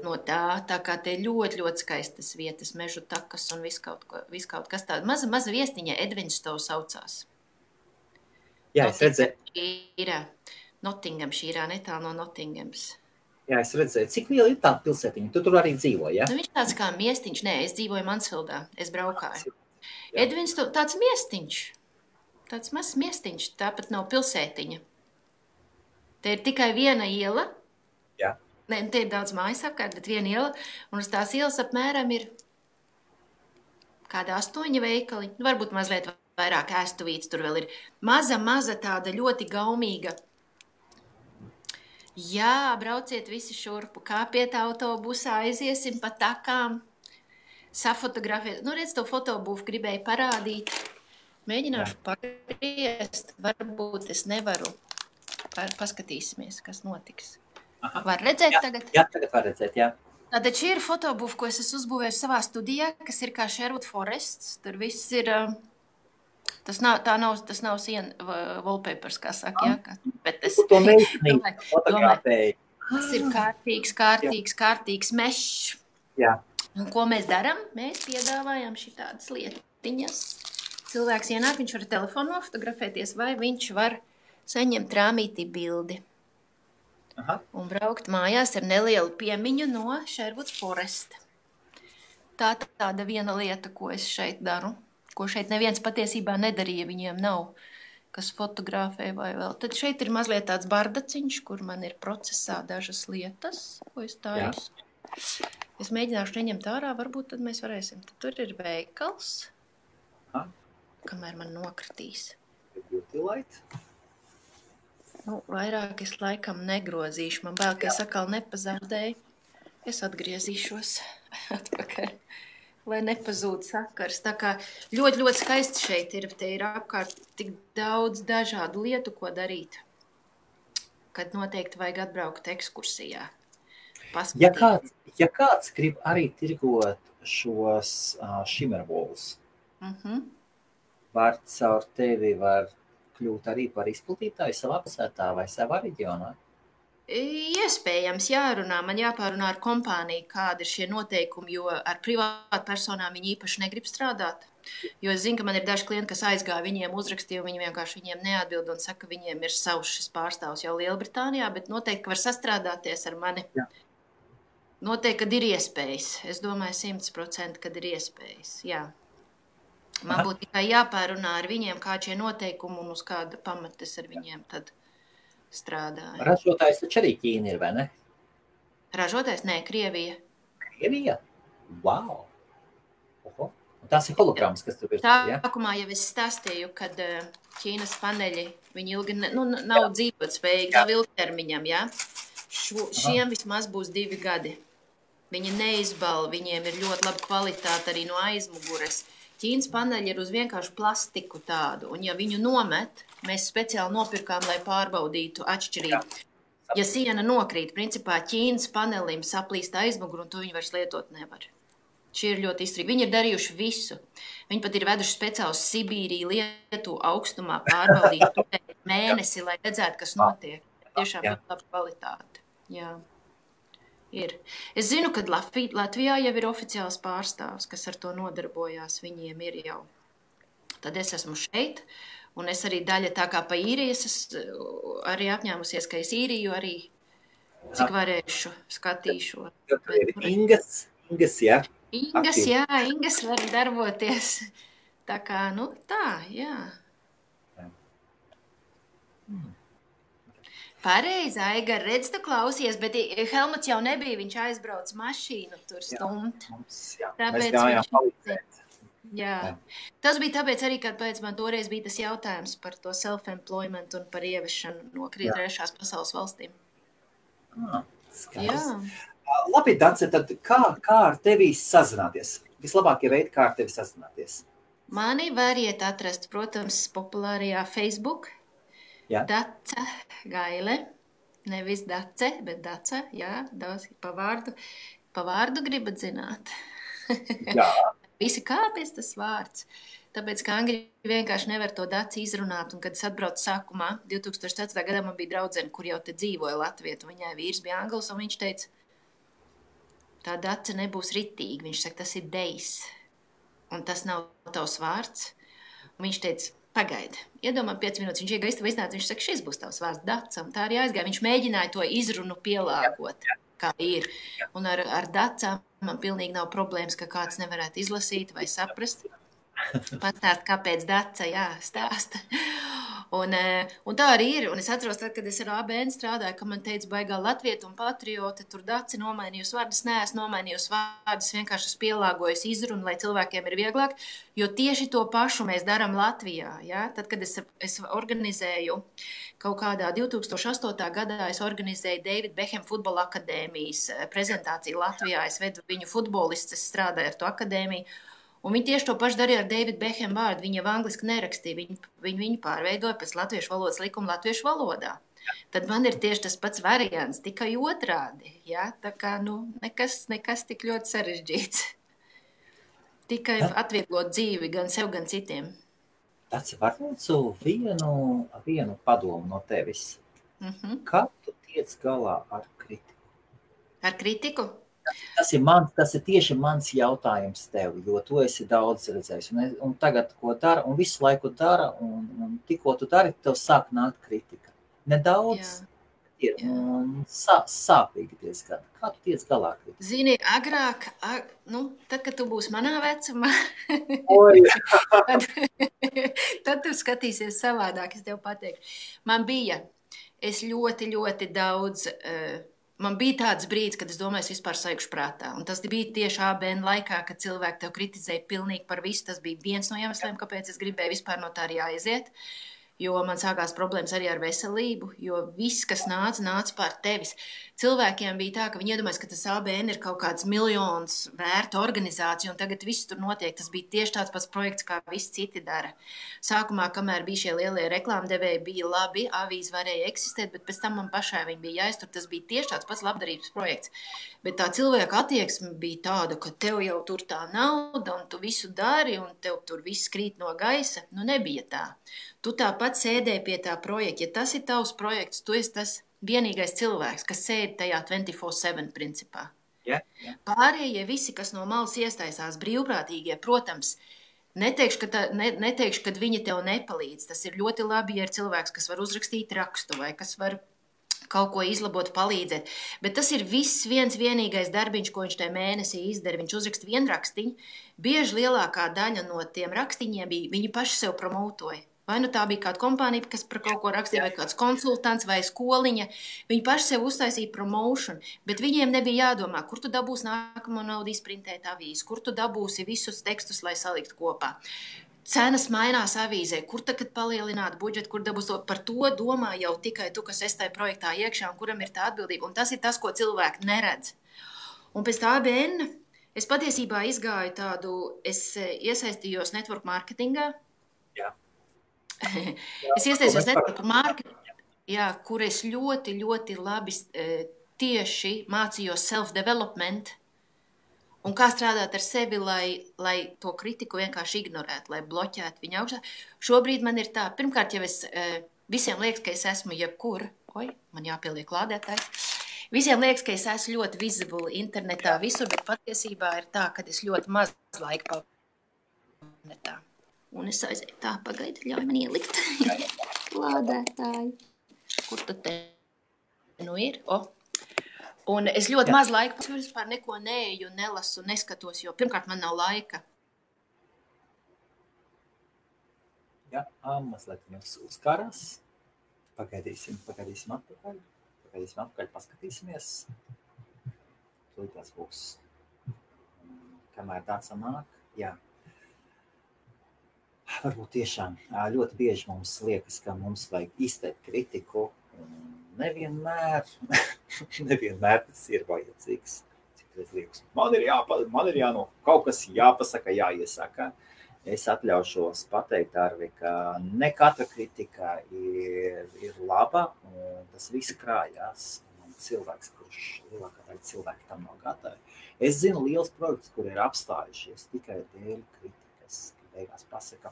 no tā. Tā kā te ļoti, ļoti skaistas vietas, mežu takas un viss kaut kas tāds. Maza viestiņa, Edvinstow saucās. Jā, es redzēju. Nottinghamshire, netālu no Nottinghams. Jā, es redzēju, cik liela ir tā pilsētiņa. Tu tur arī dzīvo, ja? Nu, viņš tāds kā miestiņš. Nē, es dzīvoju Mansfieldā. Es braukāju. Edvinstow tāds miestiņš. Tāds mazs miestiņš. Tāpat nav pilsētiņa. Te ir tikai viena iela. Jā. Nē, te ir daudz mājas apkārt, bet viena iela. Un uz tās ielas apmēram ir kāda 8 veikali. Varbūt mazliet vairāk ēstuvītes. Tur vēl ir maza tāda ļoti gaumīga. Jā, brauciet visi šurpu, kāpiet autobusā, aiziesim pa takām, safotografēt. Nu, redz, to fotobūvu gribēju parādīt. Mēģināšu pagriezt, varbūt es nevaru. Paskatīsimies, kas notiks. Aha. Var redzēt tagad? Jā, tagad var redzēt, jā. Tātad šī ir fotobūva, ko es esmu uzbūvējis savā studijā, kas ir kā Sherwood Forests. Tur viss ir... Tas nav siena wallpapers, kā saka, jā. Bet es to meisnīgi fotografēji. Tas ir kārtīgs mešs. Jā. Un ko mēs darām? Mēs piedāvājam šitādas lietiņas. Cilvēks ienāk, viņš var telefonu nofotografēties, vai viņš var saņemt rāmītī bildi. Aha. Un braukt mājās ar nelielu piemiņu no Sherwood Forest. Tāda viena lieta, ko es šeit daru. Ko šeit neviens patiesībā nedarīja, viņiem nav, kas fotografē vai vēl. Tad šeit ir mazliet tāds bardaciņš, kur man ir procesā dažas lietas, ko es taisu. Es mēģināšu neņemt ārā, varbūt tad mēs varēsim. Tad tur ir veikals, kamēr man nokritīs. Beauty light. Nu, vairāk es laikam negrozīšu. Man bail, ka es atkal nepazaudēju. Es atgriezīšos atpakaļ. Lai nepazūd sakars. Tā kā ļoti, ļoti skaisti šeit ir. Te ir apkārt tik daudz dažādu lietu, ko darīt. Kad noteikti vajag atbraukt ekskursijā. Ja kāds grib arī tirgot šos shimmerwalls, var caur tevi var kļūt arī par izplatītāju savā pilsētā vai savā reģionā? Iespējams jārunā, man jāpārunā ar kompāniju, kādi ir šie noteikumi, jo ar privātu personām viņi īpaši negrib strādāt. Jo es zinu, ka man ir daži klienti, kas aizgāja, viņiem uzrakstīja, viņi vienkārši viņiem neatbild un saka, ka viņiem ir savs šis pārstāvs jau Lielbritānijā, bet noteikti, ka var sastrādāties ar mani. Jā. Noteikti, kad ir iespējas. Es domāju 100%, kad ir iespējas, jā. Man būtu tikai jāpārunā ar viņiem, kā šie noteikumi un uz kāda pamatas ar viņiem tad strādāja. Ražotājs taču arī Ķīna ir, vai ne? Ražotājs? Nē, Krievija. Krievija? Wow! Oho. Un tās ir holograms, kas tur ir. Sākumā jau es stāstīju, kad Ķīnas paneļi, viņi ilgi nav dzīvot spējīgi, nav ilgtermiņam, jā? Šiem vismaz būs 2 gadi. Viņi neizbal, viņiem ir ļoti laba kvalitāte arī no aizmugures. Ķīnas paneļi ir uz vienkārši plastiku tādu, un ja viņu nomet, mēs speciāli nopirkām, lai pārbaudītu atšķirību. Ja siena nokrīt, principā Ķīnas panelim saplīst aizmuguru, un to viņi vairs lietot nevar. Šī ir ļoti izturīga. Viņi ir darījuši visu. Viņi pat ir veduši speciāli uz Sibīriju, Lietuvu augstumā pārbaudīt mēnesi, lai redzētu, kas notiek. Tiešām ļoti laba kvalitāte. Jā. Ir. Es zinu, ka Latvijā jau ir oficiāls pārstāvs, kas ar to nodarbojās. Viņiem ir jau. Tad es esmu šeit, un es arī daļa tā kā pa īrijas, es arī apņēmusies, ka es īriju arī, cik varēšu, skatīšu. Ingas, jā. Ingas var darboties. Tā kā, jā. Pareizi, Aigar, redz, tu klausies, bet Helmuts jau nebija, viņš aizbrauc mašīnu tur stumt. Mēs gājām palīdzēt. Jā. Tas bija tāpēc arī, kad pēc man toreiz bija tas jautājums par to self-employment un par ieviešanu no trešās pasaules valstīm. Skaidrs. Labi, Dance, tad kā ar tevi sazināties? Vislabākie veidi, kā ar tevi sazināties? Mani variet atrast, protams, populārajā Facebook. Jā. Dace Gaile, nevis Dace, bet Dace, jā, pa vārdu gribat zināt. Jā. Visi kāpēc tas vārds? Tāpēc, ka angļi vienkārši nevar to Daci izrunāt, un kad es atbraucu sākumā, 2004. gadā man bija draudzene, kur jau te dzīvoja Latvijā, un viņai vīrs bija anglis, un viņš teica, tā Dace nebūs ritīga, viņš saka, tas ir dejs, un tas nav tavs vārds, un viņš teica, pagaidi, iedomā 5 minūtes, viņš iegā iznāca, viņš saka, šis būs tavs vārds Daca, un tā arī aizgāja. Viņš mēģināja to izrunu pielāgot, kā ir. Un ar Dacām man pilnīgi nav problēmas, ka kāds nevarētu izlasīt vai saprast. Pastāst, kāpēc Daca, jā, stāsta. Un tā arī ir. Un es atceros, tad, kad es ar ABN strādāju, ka man teica baigā latvieta un patriota, tur Daci nomainījusi vārdus, neesmu nomainījusi vārdus, vienkārši es pielāgojusi izrunu, lai cilvēkiem ir vieglāk, jo tieši to pašu mēs darām Latvijā. Ja? Tad, kad es organizēju kaut kādā 2008. gadā, es organizēju David Beckham futbola akadēmijas prezentāciju Latvijā, es vedu viņu futbolistus, es strādāju ar to akadēmiju. Un viņi tieši to pašu darīja ar David Beckham vārdu. Viņi jau angliski nerakstīja, viņu pārveidoja pēc latviešu valodas likuma latviešu valodā. Tad man ir tieši tas pats variants, tikai otrādi. Ja? Tā kā, nekas tik ļoti sarežģīts. Tikai atvieglot dzīvi gan sev, gan citiem. Tas var lūdzu vienu padomu no tevis. Kā tu tiec galā ar kritiku? Ar kritiku? Tas ir tieši mans jautājums tev, jo tu esi daudz redzējis. Un tagad, ko dara, un visu laiku dara, un tikko tu dari, tev sāk nākt kritika. Nedaudz ir sāpīgi diezgan. Kā tu tiec galā kritika? Zini, agrāk, tad, kad tu būsi manā vecumā, tad tu skatīsies savādāk, es tev pateikšu. Es ļoti, ļoti daudz... Man bija tāds brīdis, kad es domāju, es vispār saikšu prātā. Un tas bija tieši ABN laikā, kad cilvēki tev kritizēja pilnīgi par visu. Tas bija viens no iemesliem, kāpēc es gribēju vispār no tā arī aiziet. Jo man sākās problēmas arī ar veselību, jo viss, kas nāca pār tevis. Cilvēkiem bija tā, ka viņi iedomājas, ka tas ABN ir kaut kāds miljonus vērta organizācija, un tagad viss tur notiek. Tas bija tieši tāds pats projekts, kā visi citi dara. Sākumā, kamēr bija šie lielie reklāmdevēji, bija labi, avīze varēja eksistēt, bet pēc tam man pašai viņi bija jāiztur. Tas bija tieši tāds pats labdarības projekts. Bet tā cilvēka attieksme bija tāda, ka tev jau tur tā nauda, un tu visu dari, un tev tur viss krīt no gaisa. Nebija tā. Tu tāpat sēdēji pie tā projekta. Ja tas ir tavs projekts, tu esi tas vienīgais cilvēks, kas sēd tajā 24/7 principā. Pārējie visi, kas no malas iesaistās brīvprātīgie, protams, neteikšu, ka viņi tev nepalīdz. Tas ir ļoti labi, ja ir cilvēks, kas var uzrakstīt rakstu vai kas var kaut ko izlabot, palīdzēt. Bet tas ir viss vienīgais darbiņš, ko viņš tajā mēnesī izdara. Viņš uzraksta vienu rakstiņu. Bieži lielākā daļa no tiem rakstiņiem bija, viņi paši sev promotoja. Vai tā bija kāda kompānija, kas par kaut ko rakstīja, vai kāds konsultants, vai skoliņa. Viņi paši sev uztaisīja promotion, bet viņiem nebija jādomā, kur tu dabūsi nākamo naudu izprintēt avīzi, kur tu dabūsi visus tekstus, lai salikt kopā. Cenas mainās avīzē, kur tagad palielināt budžetu, kur dabūs to. Par to domā jau tikai tu, kas esi tajā projektā iekšā un kuram ir tā atbildība. Un tas ir tas, ko cilvēki neredz. Un pēc tā ABN Es patiesībā izgāju tādu, es iesaistījos network marketingā. Jā. Es iesaistījos network marketingā, jā, kur es ļoti, ļoti labi tieši mācījos self-development un kā strādāt ar sevi, lai to kritiku vienkārši ignorētu, lai bloķētu viņu augšā. Šobrīd man ir tā, pirmkārt, jau es visiem liekas, ka es esmu jebkur, man jāpieliek lādētājs. Visiem liekas, ka es esmu ļoti visible internetā visur, bet patiesībā ir tā, ka es ļoti maz laika internetā. Un es aizēju tā, pagaidi, ļauj man ielikt lādētāju. Kur tad te nu ir? Un es ļoti maz laika, vispār neko neeju, nelasu, neskatos, jo pirmkārt man nav laika. Jā, mazliet jums uzkarās. Pagaidīsim atpakaļ. Paskatīsimies. Tūlīt būs. Kamēr tāds nāk, jā. Varbūt tiešām ļoti bieži mums liekas, ka mums vajag izteikt kritiku. Nevienmēr tas ir vajadzīgs. Citreiz liekas, man ir kaut kas jāpasaka, jāiesaka. Es atļaušos pateikt, Arvi, ka ne katra kritika ir laba, un tas viss krājās. Un cilvēks, kurš lielākā daļa cilvēki tam nav gatavi. Es zinu liels projekts, kur ir apstājušies tikai dēļ kritikas, ka beigās pasaka.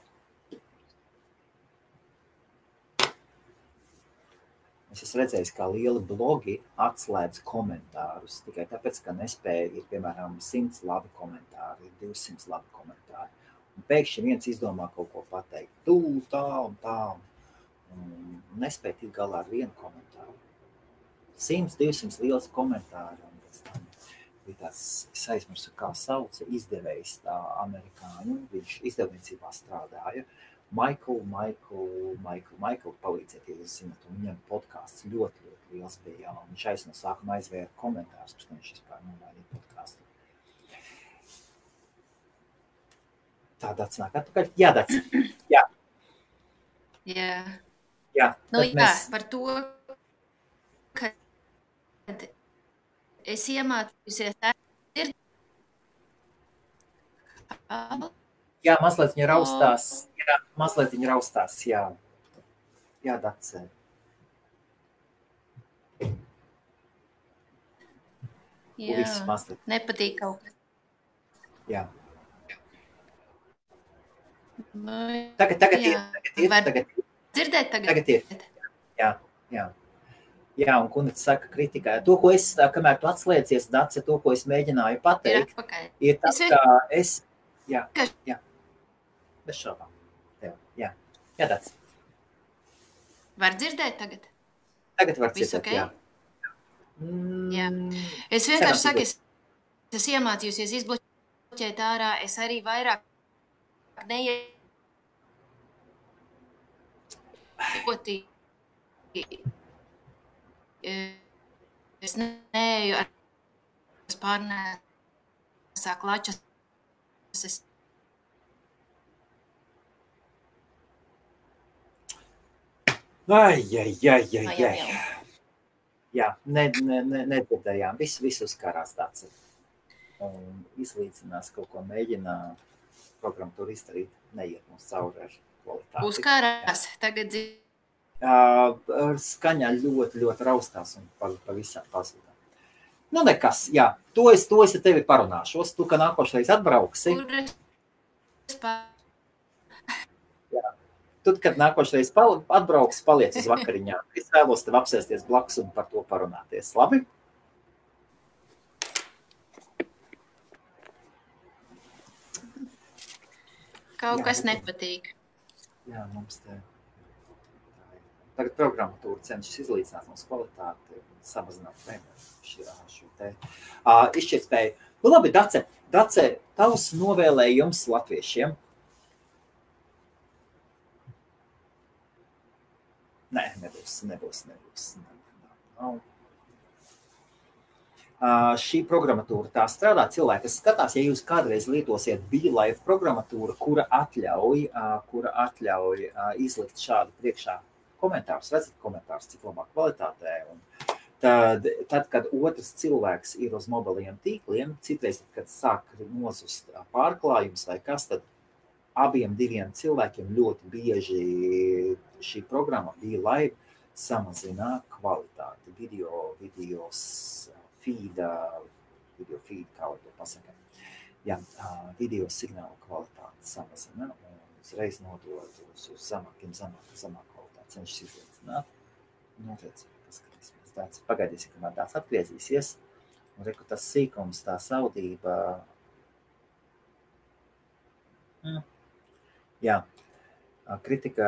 Es esmu redzējis, kā lieli blogi atslēdz komentārus, tikai tāpēc, ka nespēja ir, piemēram, 100 labi komentāri, 200 labi komentāri. Un pēkšņi viens izdomā kaut ko pateikt, tā un tā, un nespēja tikt galā ar vienu komentāru. 100, 200 liels komentāri, un pēc tam bija tāds, es aizmirsu, kā sauca izdevējs tā amerikāņu, viņš izdevniecībā strādāja. Michael, palīdziet, ja jūs zināt, un viņam podcasts ļoti liels bija, un viņš no sākuma aizvēra komentārus, pēc tam viņš vispār nomainīja podcastu. Tā Dats nāk atpakaļ. Jā, Dats. Jā. Jā. Nu, jā, par to, kad es iemācījusies Jā, mazliet viņa raustās. Jā, Dats. Jā, nepatīk kaut kas. Jā. Nu, Tagad ir. Dzirdēt tagad? Tagad ir. Jā, un Kunits saka kritikā. To, ko es, kamēr tu atslēdzies, Dace, to, ko es mēģināju pateikt, ir tas, ka es... Jā. Bez šaubām. Jā, Dace. Var dzirdēt tagad? Tagad var dzirdēt, okay? Jā. Jā. Es vienkārši saku, es iemācījusies izbloķēt ārā, es arī vairāk es neeju ar pārnēsā klačas. Jā, nedzirdējām. Visu uzkārās tāds. Un izlīdzinās kaut ko mēģinā programmatūru izdarīt, neiet mums cauri ar kvalitāti. Uzkārās, tagad skaņā ļoti raustās un pavisam pazudā. Nu nekas, jā, to es ar tevi parunāšos. Tu, ka nākošreiz atbrauksi. Jā. Tu, kad nākošreiz atbrauksi, paliec uz vakariņā. Es vēlos tev apsēsties blakus un par to parunāties. Labi? Kaut kas nepatīk. Jā, mums te... Tagad programmatūra cenšas izlīdzināt mums kvalitāti, samazināt šo te izšķirtspēju. Nu labi, Dace, tavs novēlējums latviešiem? Nē, nebūs. Šī programmatūra tā strādā cilvēki, kas skatās, ja jūs kādreiz lietosiet BeLive programmatūru, kura atļauj izlikt šādu priekšā komentārus, redzat komentārus, cik labā kvalitātē, un Tad, kad otrs cilvēks ir uz mobiliem tīkliem, citreiz, kad sāk nozust pārklājums vai kas, tad abiem diviem cilvēkiem ļoti bieži šī programma bija, lai samazina kvalitāti, video feed, kā var to pasakāt. Jā, video signālu kvalitāti samazina un uzreiz nodod uz zemāku kvalitāti, cenšas izlīdzināt. Notiec, paskatīsimies tāds, pagaidīsim, kamēr tāds atgriezīsies. Un reku tas sīkums, tā saudība. Jā, kritika.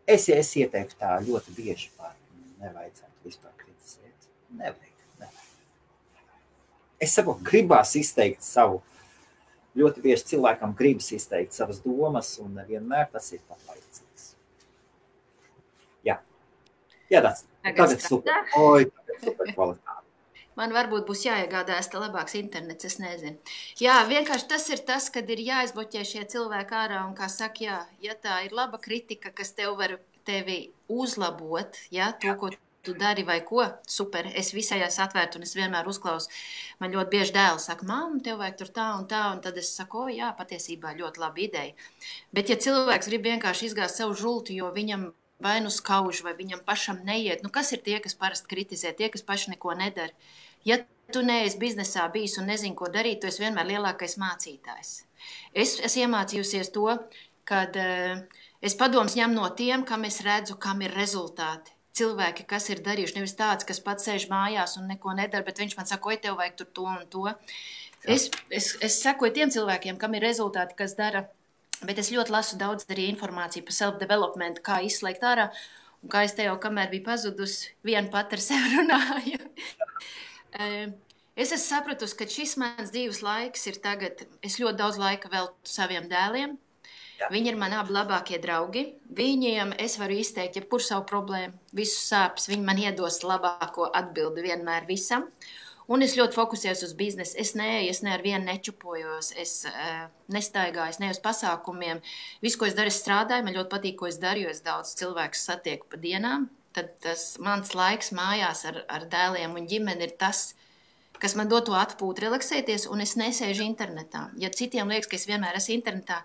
Es ieteiktu tā ļoti bieži nevajadzētu vispār kritizēt. Nevajag. Es saprotu, gribās izteikt savu, ļoti bieži cilvēkam gribas izteikt savas domas, un vienmēr tas ir pat vajadzīgs. Jā, tagad super kvalitāte. Man varbūt būs jāiegādājas tā labāks internets, es nezinu. Jā, vienkārši tas ir tas, kad ir jāizbloķē šie cilvēki ārā, un kā saka, ja tā ir laba kritika, kas tevi uzlabot, to, ko tu dari vai ko, super, es visajās atvērtu un es vienmēr uzklausu. Man ļoti bieži dēls saka, mamma, tev vajag tur tā, un tad es saku, jā, patiesībā ļoti laba ideja. Bet ja cilvēks grib vienkārši izgāzt savu žultu, jo viņam vai nu skauž, vai viņam pašam neiet, kas ir tie, kas parasti kritizē, tie, kas paši neko nedara? Ja tu neesi biznesā bijis un nezini, ko darīt, tu esi vienmēr lielākais mācītājs. Es iemācījusies to, kad es padoms ņem no tiem, kam es redzu, kam ir rezultāti. Cilvēki, kas ir darījuši, nevis tāds, kas pats sēž mājās un neko nedara, bet viņš man saka, oi, tev vajag tur to un to. Es sakoju tiem cilvēkiem, kam ir rezultāti, kas dara, bet es ļoti lasu daudz arī informāciju par self-development, kā izslēgt ārā, un kā es te jau, kamēr bija pazudus, vien pat ar sevi runāju. Es esmu sapratusi, ka šis mans dzīves laiks ir tagad, es ļoti daudz laika veltu saviem dēliem. Viņi ir mani abi labākie draugi. Viņiem es varu izteikt jebkuru savu problēmu, visu sāpes. Viņi man iedos labāko atbildi vienmēr visam. Un es ļoti fokusējos uz biznesu. Es ne ar vienu nečupojos, es nestaigāju, es ne uz pasākumiem. Visu, ko es daru, es strādāju. Man ļoti patīk, ko es daru, jo es daudz cilvēkus satieku pa dienām. Tad tas mans laiks mājās ar dēliem un ģimeni ir tas, kas man dod to atpūtu, relaksēties, un es nesēžu internetā. Ja citiem liekas, ka es vienmēr esmu internetā,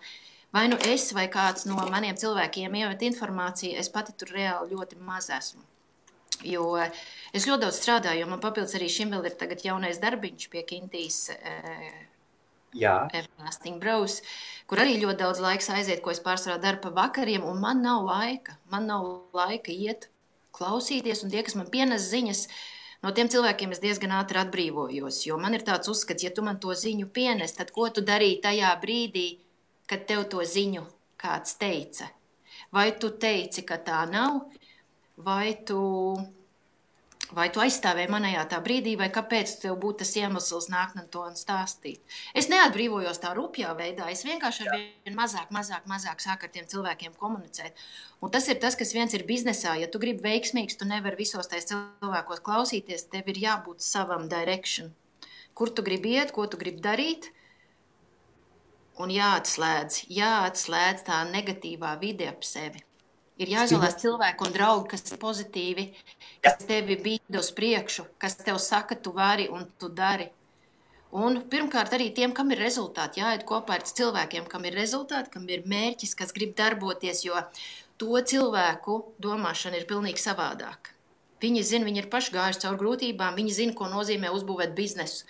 vai nu es vai kāds no maniem cilvēkiem iemet informāciju, es pati tur reāli ļoti maz esmu. Jo es ļoti daudz strādāju, jo man papildus arī šim vēl ir tagad jaunais darbiņš pie Kintīs Everlasting Bros, kur arī ļoti daudz laiks aiziet, ko es pārsvarā daru pa vakariem, un man nav laika. Man nav laika iet, klausīties, un tie, kas man pienes ziņas, no tiem cilvēkiem es diezgan ātri atbrīvojos, jo man ir tāds uzskats, ja tu man to ziņu pienes, tad ko tu darīji tajā brīdī, kad tev to ziņu kāds teica? Vai tu teici, ka tā nav, vai tu aizstāvēji manējā tā brīdī, vai kāpēc tev būtu tas iemesls nākt un to stāstīt? Es neatbrīvojos tā rupjā veidā, es vienkārši ar vien mazāk sāku ar tiem cilvēkiem komunicēt. Un tas ir tas, kas viens ir biznesā. Ja tu gribi veiksmīgs, tu nevari visos tais cilvēkos klausīties, tev ir jābūt savam direction. Kur tu gribi iet, ko tu gribi darīt? Un jāatslēdz tā negatīvā vide ap sevi. Ir jāizvēlās cilvēku un draugi, kas ir pozitīvi, kas tevi bīda uz priekšu, kas tev saka, tu vari un tu dari. Un pirmkārt arī tiem, kam ir rezultāti, jāiet kopā ar cilvēkiem, kam ir rezultāti, kam ir mērķis, kas grib darboties, jo to cilvēku domāšana ir pilnīgi savādāk. Viņi zina, viņi ir paši gājuši caur grūtībām, viņi zina, ko nozīmē uzbūvēt biznesu.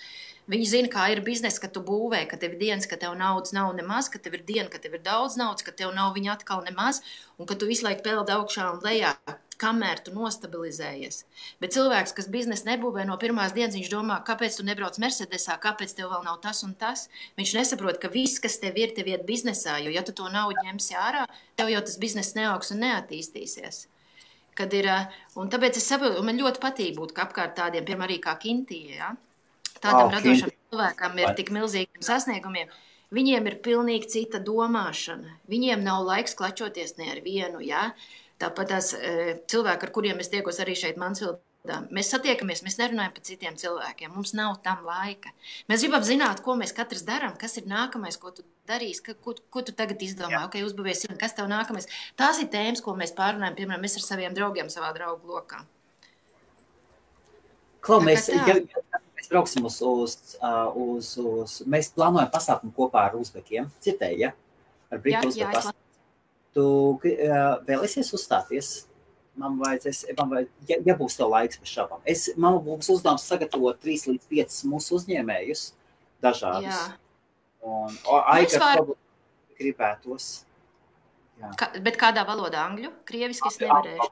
Viņi zina, kā ir biznesa, ka tu būvē, ka tev ir dienas, ka tev naudas nav nemaz, ka tev ir diena, ka tev ir daudz naudas, ka tev nav viņa atkal nemaz, un ka tu visu laiku peld augšā un lejā, kamēr tu nostabilizējies. Bet cilvēks, kas biznesu nebūvē no pirmās dienas, viņš domā, kāpēc tu nebrauc Mercedesā, kāpēc tev vēl nav tas un tas. Viņš nesaprot, ka viss, kas tev ir iet biznesā, jo ja tu to naudu ņemsi ārā, tev jau tas bizness neaugs un neattīstīsies. Un tāpēc es saprotu, un man ļoti patīk būt apkārt tādiem, piemēram, arī kā Kintija, ja? Tādam radošam cilvēkam ir tik milzīgiem sasniegumiem. Viņiem ir pilnīgi cita domāšana. Viņiem nav laiks klačoties ne ar vienu, ja? Tāpat tās cilvēki, ar kuriem es tiekos arī šeit Mansvildā, mēs satiekamies, mēs nerunājam par citiem cilvēkiem, mums nav tam laika. Mēs gribam zināt, ko mēs katrs darām, kas ir nākamais, ko tu darīsi, ko tu tagad izdomā, uzbūvies, kas tev nākamais. Tās ir tēmas, ko mēs pārunājam, piemēram, mēs ar saviem draugiem savā draugu lokā. Klau, Tā kā tā. mēs brauksim mēs plānojam pasākumu kopā ar uzbekiem. Citēji, ja? Ar Britu uzbeku pasākumu. Tu vēlēsies uzstāties? Ja būs tev laiks bez šāpām. Man būs uzdevums sagatavot 3 līdz 5 mūsu uzņēmējus dažādus. Jā. Un Aiga problēma gribētos. Jā. Bet kādā valodā? Angļu? Krieviski es nevarēšu.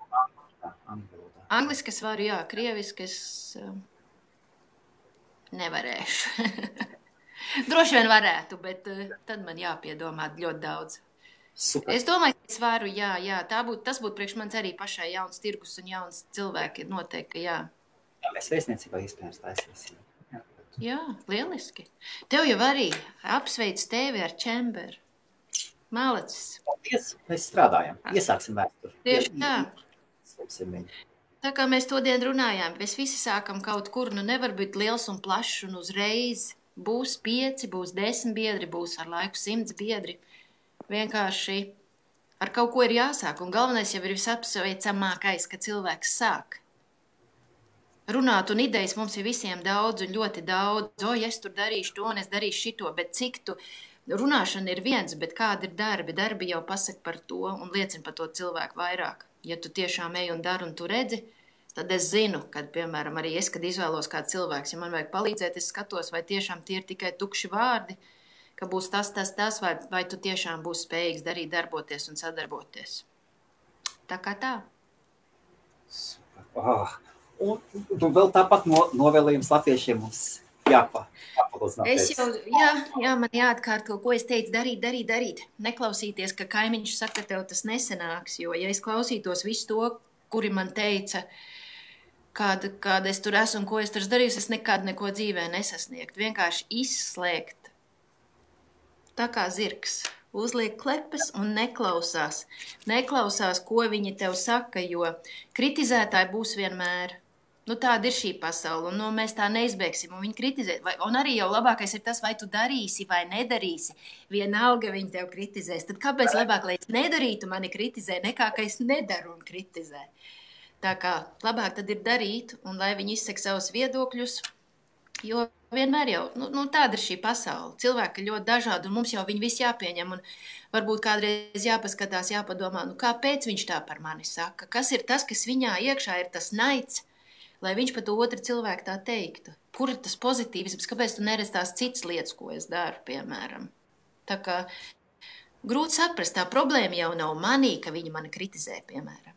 Angliski es varu, jā. Krieviski es nevarēšu. Droši vien varētu, bet tad man jāpiedomā ļoti daudz. Super. Es domāju, ka es varu, jā. Tas būtu priekš manis arī pašai jauns tirgus un jauns cilvēki. Noteikti, jā. Jā, mēs vēstniecībā iespējams taisīsim. Jā, lieliski. Tev jau arī apsveic tevi ar Čemberu. Malacis. Paldies, mēs strādājam. Iesāksim vēsturi. Tieši tā. Tā kā mēs to dienu runājām, mēs visi sākam kaut kur, nevar būt liels un plašs un uzreiz. Būs 5, būs 10 biedri, būs ar laiku 100 biedri. Vienkārši ar kaut ko ir jāsāk, un galvenais jau ir visapsveicamākais, ka cilvēks sāk. Runāt un idejas mums ir visiem daudz un ļoti daudz. Es tur darīšu to un es darīšu šito, bet cik tu runāšana ir viens, bet kādi ir darbi? Darbi jau pasaka par to un liecina par to cilvēku vairāk. Ja tu tiešām ej un dari un tu redzi, tad es zinu, kad, piemēram, arī es, kad izvēlos kādu cilvēku, ja man vajag palīdzēt, es skatos, vai tiešām tie ir tikai tukši vārdi, ka būs tas, vai tu tiešām būsi spējīgs darīt, darboties un sadarboties. Tā kā tā. Un vēl tāpat novēlējums latviešiem mums jāpalūdzināt. Jā, man jāatkārto, ko es teicu, darīt. Neklausīties, ka kaimiņš saka, ka tev tas nesanāks, jo, ja es klausītos visu to, kuri man teica, kāda es tur esmu un ko es tur darīju, es nekad neko dzīvē nesasniegtu. Vienkārši izslēgt. Tā kā zirgs, uzliek klepes un neklausās. Neklausās, ko viņi tev saka, jo kritizētāji būs vienmēr. Tāda ir šī pasaule, un mēs tā neizbēgsim, un viņi kritizē. Un arī jau labākais ir tas, vai tu darīsi vai nedarīsi. Vienalga viņi tev kritizēs. Tad kāpēc labāk, lai es nedarītu, mani kritizē, nekā, ka es nedaru un kritizē. Tā kā labāk tad ir darīt, un lai viņi izsaka savus viedokļus, jo vienmēr jau, tāda ir šī pasaule. Cilvēki ir ļoti dažādi, un mums jau viņi visi jāpieņem, un varbūt kādreiz jāpaskatās, jāpadomā, kāpēc viņš tā par mani saka? Kas ir tas, kas viņā iekšā ir tas naids, lai viņš par to otru cilvēku tā teiktu? Kur ir tas pozitīvisms? Kāpēc tu neredz tās citas lietas, ko es daru, piemēram? Tā kā grūti saprast, tā problēma jau nav manī, ka viņi mani kritizē, piemēram.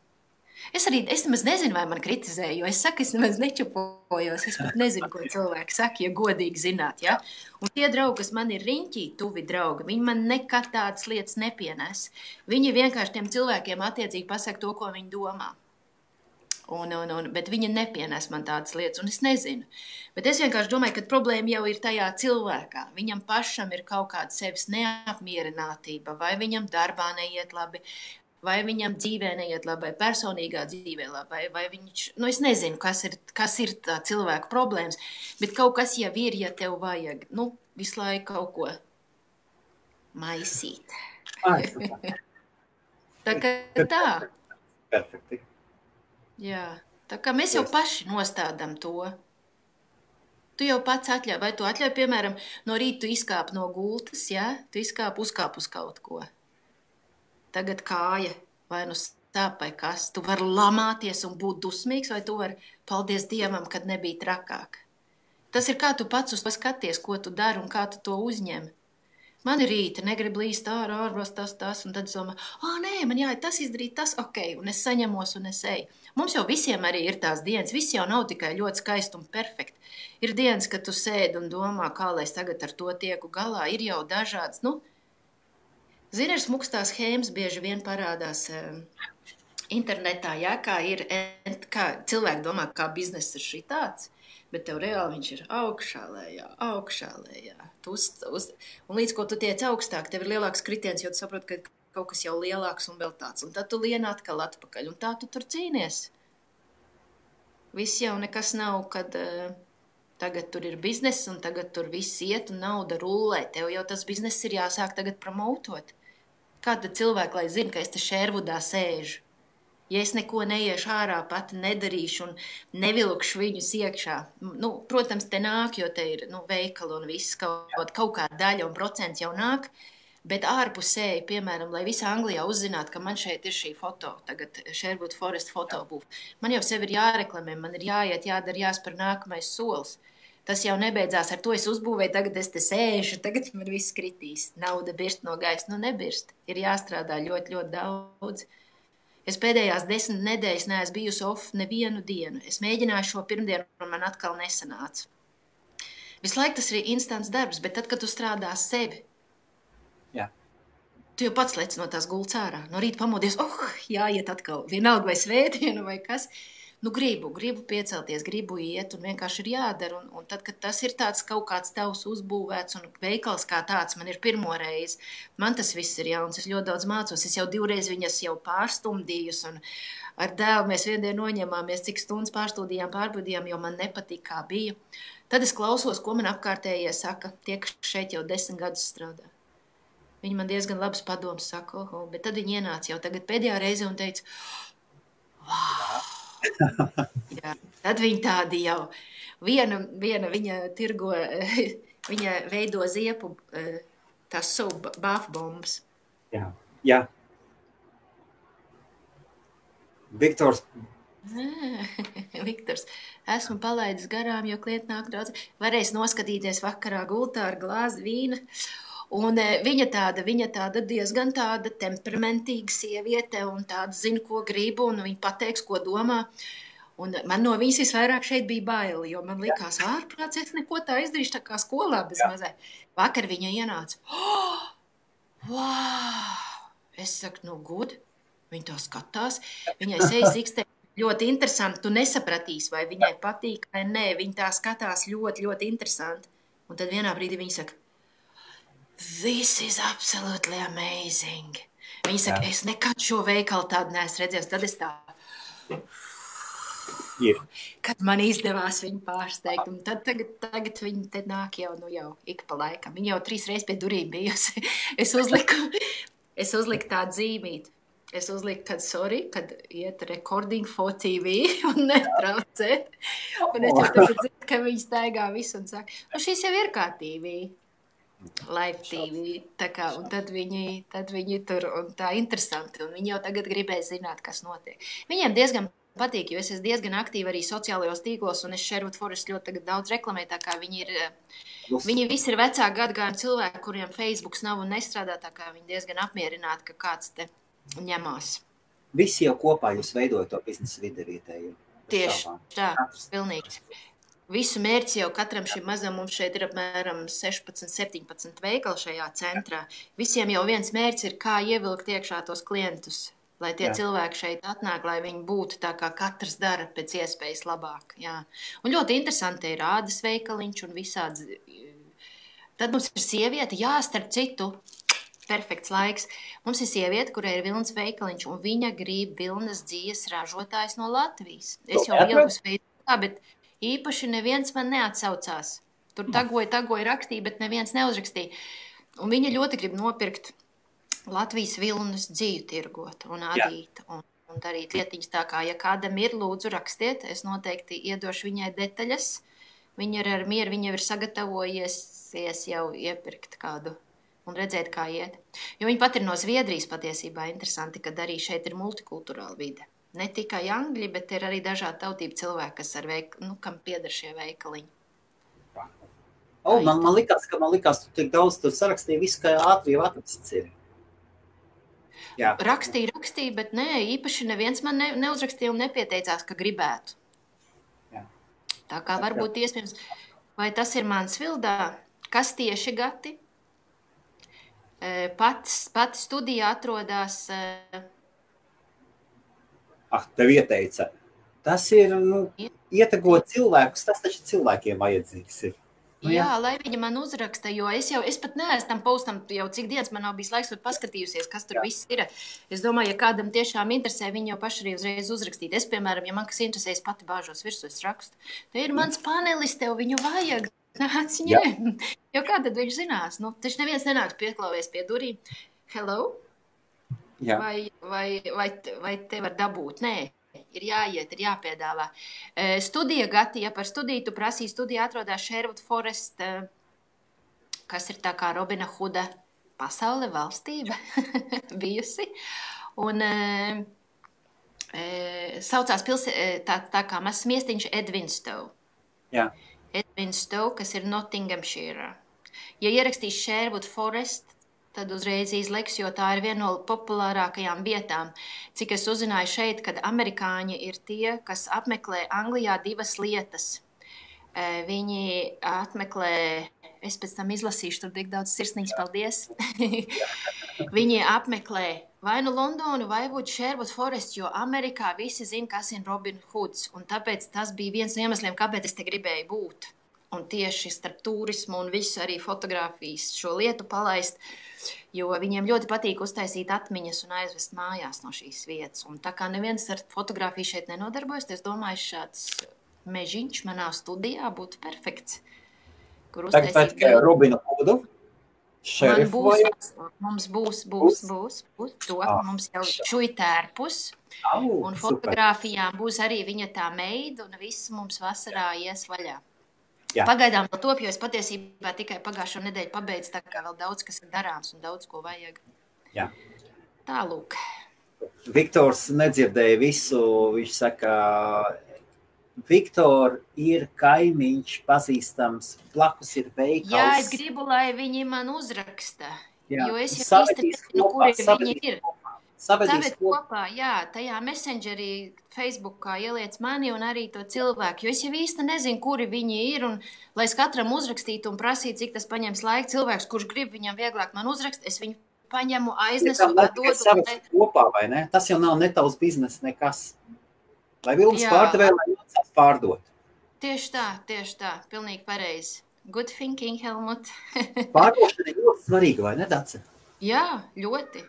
Es nemaz nezinu, vai man kritizē, jo es saku, es nemaz nečupojos, es pat nezinu, ko cilvēki saka, ja godīgi zināt, ja? Un tie draugi, kas man ir riņķī, tuvi draugi, viņi man nekad tādas lietas nepienes. Viņi vienkārši tiem cilvēkiem attiecīgi pasaka to, ko viņi domā. Bet viņi nepienes man tādas lietas, un es nezinu. Bet es vienkārši domāju, ka problēma jau ir tajā cilvēkā. Viņam pašam ir kaut kāda sevis neapmierinātība, vai viņam darbā neiet labi, vai viņam dzīvē neiet labi, vai personīgā dzīvē labi, vai viņš, es nezinu, kas ir tā cilvēka problēmas, bet kaut kas jau ir, ja tev vajag, visu laiku kaut ko maisīt. Tā kā tā. Perfekti. Jā, tā kā mēs jau paši nostādām to. Tu jau pats atļauj, vai tu atļauj, piemēram, no rīta tu izkāp no gultas, ja? Tu uzkāp uz kaut ko. Tagad kāja, vai stāp vai kas. Tu vari lamāties un būt dusmīgs, vai tu vari paldies Dievam, kad nebija trakāk. Tas ir kā tu pats uz to skaties, ko tu dari un kā tu to uzņem. Man ir rīta, negribu līst ārvas tas, un tad es domāju, nē, man jāiet tas izdarīt, tas, un es saņemos un es eju. Mums jau visiem arī ir tās dienas, viss jau nav tikai ļoti skaisti un perfekti. Ir dienas, kad tu sēdi un domā, kā lai es tagad ar to tieku galā, ir jau dažāds, Zini, ir smukstās schēmas bieži vien parādās internetā, kā cilvēki domā, kā bizness ir šitāds, bet tev reāli viņš ir augšā lejā. Un līdz ko tu tiec augstāk, tev ir lielāks kritiens, jo tu saproti, ka kaut kas jau lielāks un vēl tāds. Un tad tu lien atkal atpakaļ, un tā tu tur cīnies. Viss jau nekas nav, kad tagad tur ir bizness, un tagad tur viss iet, un nauda rullē. Tev jau tas bizness ir jāsāk tagad promotot. Kāda cilvēka, lai zina, ka es te Šērvudā sēžu? Ja es neko neiešu ārā, pati nedarīšu un nevilkšu viņus iekšā. Nu, protams, te nāk, jo te ir veikali un viss kaut kāda daļa un procents jau nāk, bet ārpusēji, piemēram, lai visa Anglijā uzzinātu, ka man šeit ir šī foto, tagad Sherwood Forest fotobūv. Man jau sevi ir jāreklamē, man ir jāiet, jādara, jāspēr nākamais solis. Tas jau nebeidzās ar to, es uzbūvēju, tagad es te sēžu, tagad man viss kritīs. Nauda birst no gaisa, nebirst. Ir jāstrādā ļoti, ļoti daudz. Es pēdējās 10 nedēļas neesmu bijusi off nevienu dienu. Es mēģināju šo pirmdienu, un man atkal nesanāca. Visu laiku tas ir instants darbs, bet tad, kad tu strādā sevi, tu jau pats lec no tās gultas ārā. No rīta pamodies, jāiet atkal, vienalga vai svētdienu vai kas. Nu, gribu piecelties, gribu iet, un vienkārši ir jādara. Un tad, kad tas ir tāds kaut kāds tavs uzbūvēts un veikals kā tāds, man ir pirmo reizi, man tas viss ir jauns, es ļoti daudz mācos, es jau 2 reizes viņas jau pārstumdījus, un ar dēlu mēs viendien noņemāmies, cik stundas pārbaudījām, jo man nepatīk, kā bija. Tad es klausos, ko man apkārtējie saka, tie, kas šeit jau 10 gadus strādā. Viņi man diezgan labas padomas saka, bet tad viņi ienāca jau tagad pēdējā reize un teica, wow! Jā, tad viņi tādi jau. Viena viņa tirgo, viņa veido ziepu, tās savu bāfbombas. Jā. Viktors. Viktors, esmu palaidis garām, jo klienti nāk daudz. Varēs noskatīties vakarā gultā ar glāzi vīna. Un viņa tāda diezgan tāda temperamentīga sieviete un tāda zina, ko gribu, un viņa pateiks, ko domā. Un man no viņas visvairāk šeit bija baili, jo man likās ārprāts, es neko tā izdarīšu tā kā skolā bez mazai. Vakar viņa ienāca. Wow! Es saku, good. Viņa tā skatās. Viņai sejas ikstē ļoti interesanti. Tu nesapratīsi, vai viņai patīk vai nē. Viņa tā skatās ļoti, ļoti interesanti. Un tad vienā brīdī viņa saka, this is absolutely amazing. Viņa saka, es nekad šo veikalu tādu neesmu redzējis. Tad es tā, kad man izdevās viņu pārsteigt. Un tad tagad viņa te nāk jau ik pa laikam. Viņa jau 3 reizes pie durīm bijusi. Es uzliku tādu zīmīti. Es uzliku, kad iet recording for TV un netraucēt. Un es jau tagad dzirdu, ka viņa staigā visu un saka, šīs jau ir kā TV. Live TV, tā kā, un tad viņi tur, un tā interesanti, un viņi jau tagad gribēja zināt, kas notiek. Viņiem diezgan patīk, jo es esmu diezgan aktīva arī sociālajos tīklos, un es Sherwood Forest ļoti tagad daudz reklamēju, tā kā viņi visi ir vecāku gadagājumu cilvēki, kuriem Facebooks nav un nestrādā, tā kā viņi diezgan apmierināti, ka kāds te ņemās. Visi jau kopā jūs veidojat to biznesa vidi vietēju. Tieši tā, pilnīgi. Visu mērķi jau katram šim mazam, mums šeit ir apmēram 16-17 veikali šajā centrā. Visiem jau viens mērķis ir, kā ievilkt iekšā tos klientus, lai tie cilvēki šeit atnāk, lai viņi būtu tā, kā katrs dara pēc iespējas labāk. Jā. Un ļoti interesanti ir ādas veikaliņš un visādi. Tad mums ir sieviete, starp citu, perfekts laiks. Mums ir sieviete, kurai ir vilnas veikaliņš, un viņa grib vilnas dzīves ražotājs no Latvijas. Es jau ieliku Facebookā, bet īpaši neviens man neatsaucās. Tur tagoja rakstīja, bet neviens neuzrakstīja. Un viņa ļoti grib nopirkt Latvijas vilnas dzīvi tirgot un adīt un darīt lietiņas tā kā, ja kādam ir, lūdzu rakstiet, es noteikti iedošu viņai detaļas. Viņa ir ar mieru, viņa ir sagatavojies jau iepirkt kādu un redzēt, kā iet. Jo viņa pat ir no Zviedrijas patiesībā interesanti, kad arī šeit ir multikulturāla vide. Ne tikai angļi, bet ir arī dažādi tautību cilvēki, kas kam pieder šie veikaliņi. Man likās, tu tik daudz tu sarakstīji visu, kā ātri jau atrasts ir. Jā. Rakstīja, bet nē, īpaši neviens man neuzrakstīja un nepieteicās, ka gribētu. Jā. Tā kā varbūt iespējams, vai tas ir mans vildā, kas tieši Gati? Pati studija atrodās... Tev ieteica. Tas ir, ietegot cilvēkus, tas taču cilvēkiem vajadzīgs ir. Jā, lai viņa man uzraksta, jo es pat neesmu tam postam jau cik dienas man nav bijis laiks pat paskatījusies, kas tur viss ir. Es domāju, ja kādam tiešām interesē, viņi jau paši arī uzreiz uzrakstīt. Es, piemēram, ja man kas interesē, es pati bāžos virsū, es rakstu. Te ir mans panelis, tev viņu vajag. Nāc ņem. Jo kā tad viņš zinās? Taču neviens nenāks pieklāvies pie durīm. Hello? Jā. Vai te var dabūt? Nē, ir jāiet, ir jāpiedāvā. Studija, Gati, ja par studiju tu prasīji, studija atrodas Sherwood Forest, kas ir tā kā Robina Huda pasaule valstība bijusi. Un saucās tā kā mazs miestiņš Edvinstow. Jā. Edvinstow, kas ir Nottinghamshire. Ja ierakstīs Sherwood Forest, tad uzreiz izliks, jo tā ir viena no populārākajām vietām. Cik es uzzināju šeit, kad amerikāņi ir tie, kas apmeklē Anglijā divas lietas. Viņi apmeklē, es pēc tam izlasīšu, tur tik daudz sirsnīgs paldies. Viņi apmeklē vai nu Londonu, vai Sherwood Forest, jo Amerikā visi zina, kas ir Robin Hoods. Un tāpēc tas bija viens no iemesliem, kāpēc es te gribēju būt. Un tieši starp turismu un visu arī fotografijas šo lietu palaist, jo viņiem ļoti patīk uztaisīt atmiņas un aizvest mājās no šīs vietas. Un tā kā neviens ar fotografiju šeit nenodarbojas, es domāju, šāds mežiņš manā studijā būtu perfekts. Kur uztaisīt... Tagad tikai Robinu Hudu? Šerifu vai? Mums būs to. Mums jau šuitērpus. Un fotografijām būs arī viņa tā meida un viss mums vasarā ies vaļā. Jā. Pagaidām vēl top, jo es patiesībā tikai pagājušo nedēļu pabeidzu, tā kā vēl daudz, kas ir darāms un daudz, ko vajag. Jā. Tālūk. Viktors nedzirdēja visu, viņš saka, Viktor ir kaimiņš pazīstams, blakus ir veikals. Jā, es gribu, lai viņi man uzraksta, Jā. jo es jau īsti nezinu, kuri viņi ir. Savedīs kopā, jā, tajā messengerī, Facebookā ieliec mani un arī to cilvēku, jo es jau īsti nezinu, kuri viņi ir, un lai es katram uzrakstītu un prasītu, cik tas paņems laiku, cilvēks, kurš grib viņam vieglāk man uzrakst, es viņu paņemu, aiznesu, dodu. Kopā, vai ne? Tas jau nav ne tavs biznes nekas. Lai Vilms pārdevēja, lai jāsāk pārdot. Tieši tā, pilnīgi pareizi. Good thinking, Helmut. Pārdošana ir ļoti svarīga, vai ne, Dace? Jā, ļoti.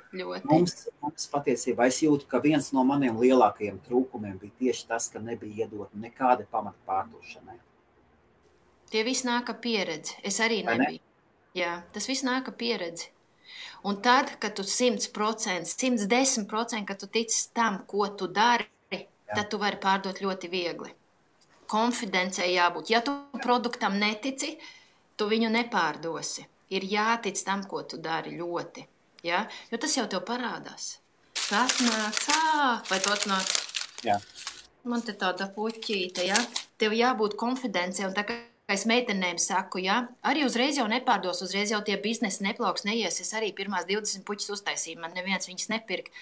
Mums patiesībā es jūtu, ka viens no maniem lielākajiem trūkumiem bija tieši tas, ka nebija iedot nekāda pamata pārdošanai. Tie viss nāk ar pieredzi. Es arī nebiju. Jā, tas viss nāk ar pieredzi. Un tad, kad tu 100%, 110%, kad tu tici tam, ko tu dari, tad tu vari pārdot ļoti viegli. Konfidencei jābūt. Ja tu produktam netici, tu viņu nepārdosi. Ir jātic tam, ko tu dari ļoti. Ja? Jo tas jau tev parādās. Tu atnāc, vai tu atnāc? Jā. Man te tāda puķīte, ja? Tev jābūt konfidencei, un tā kā es meitenēm saku, ja? Arī uzreiz jau nepārdos, uzreiz jau tie biznesi neplauks, neies. Es arī pirmās 20 puķis uztaisīju, man neviens viņas nepirk.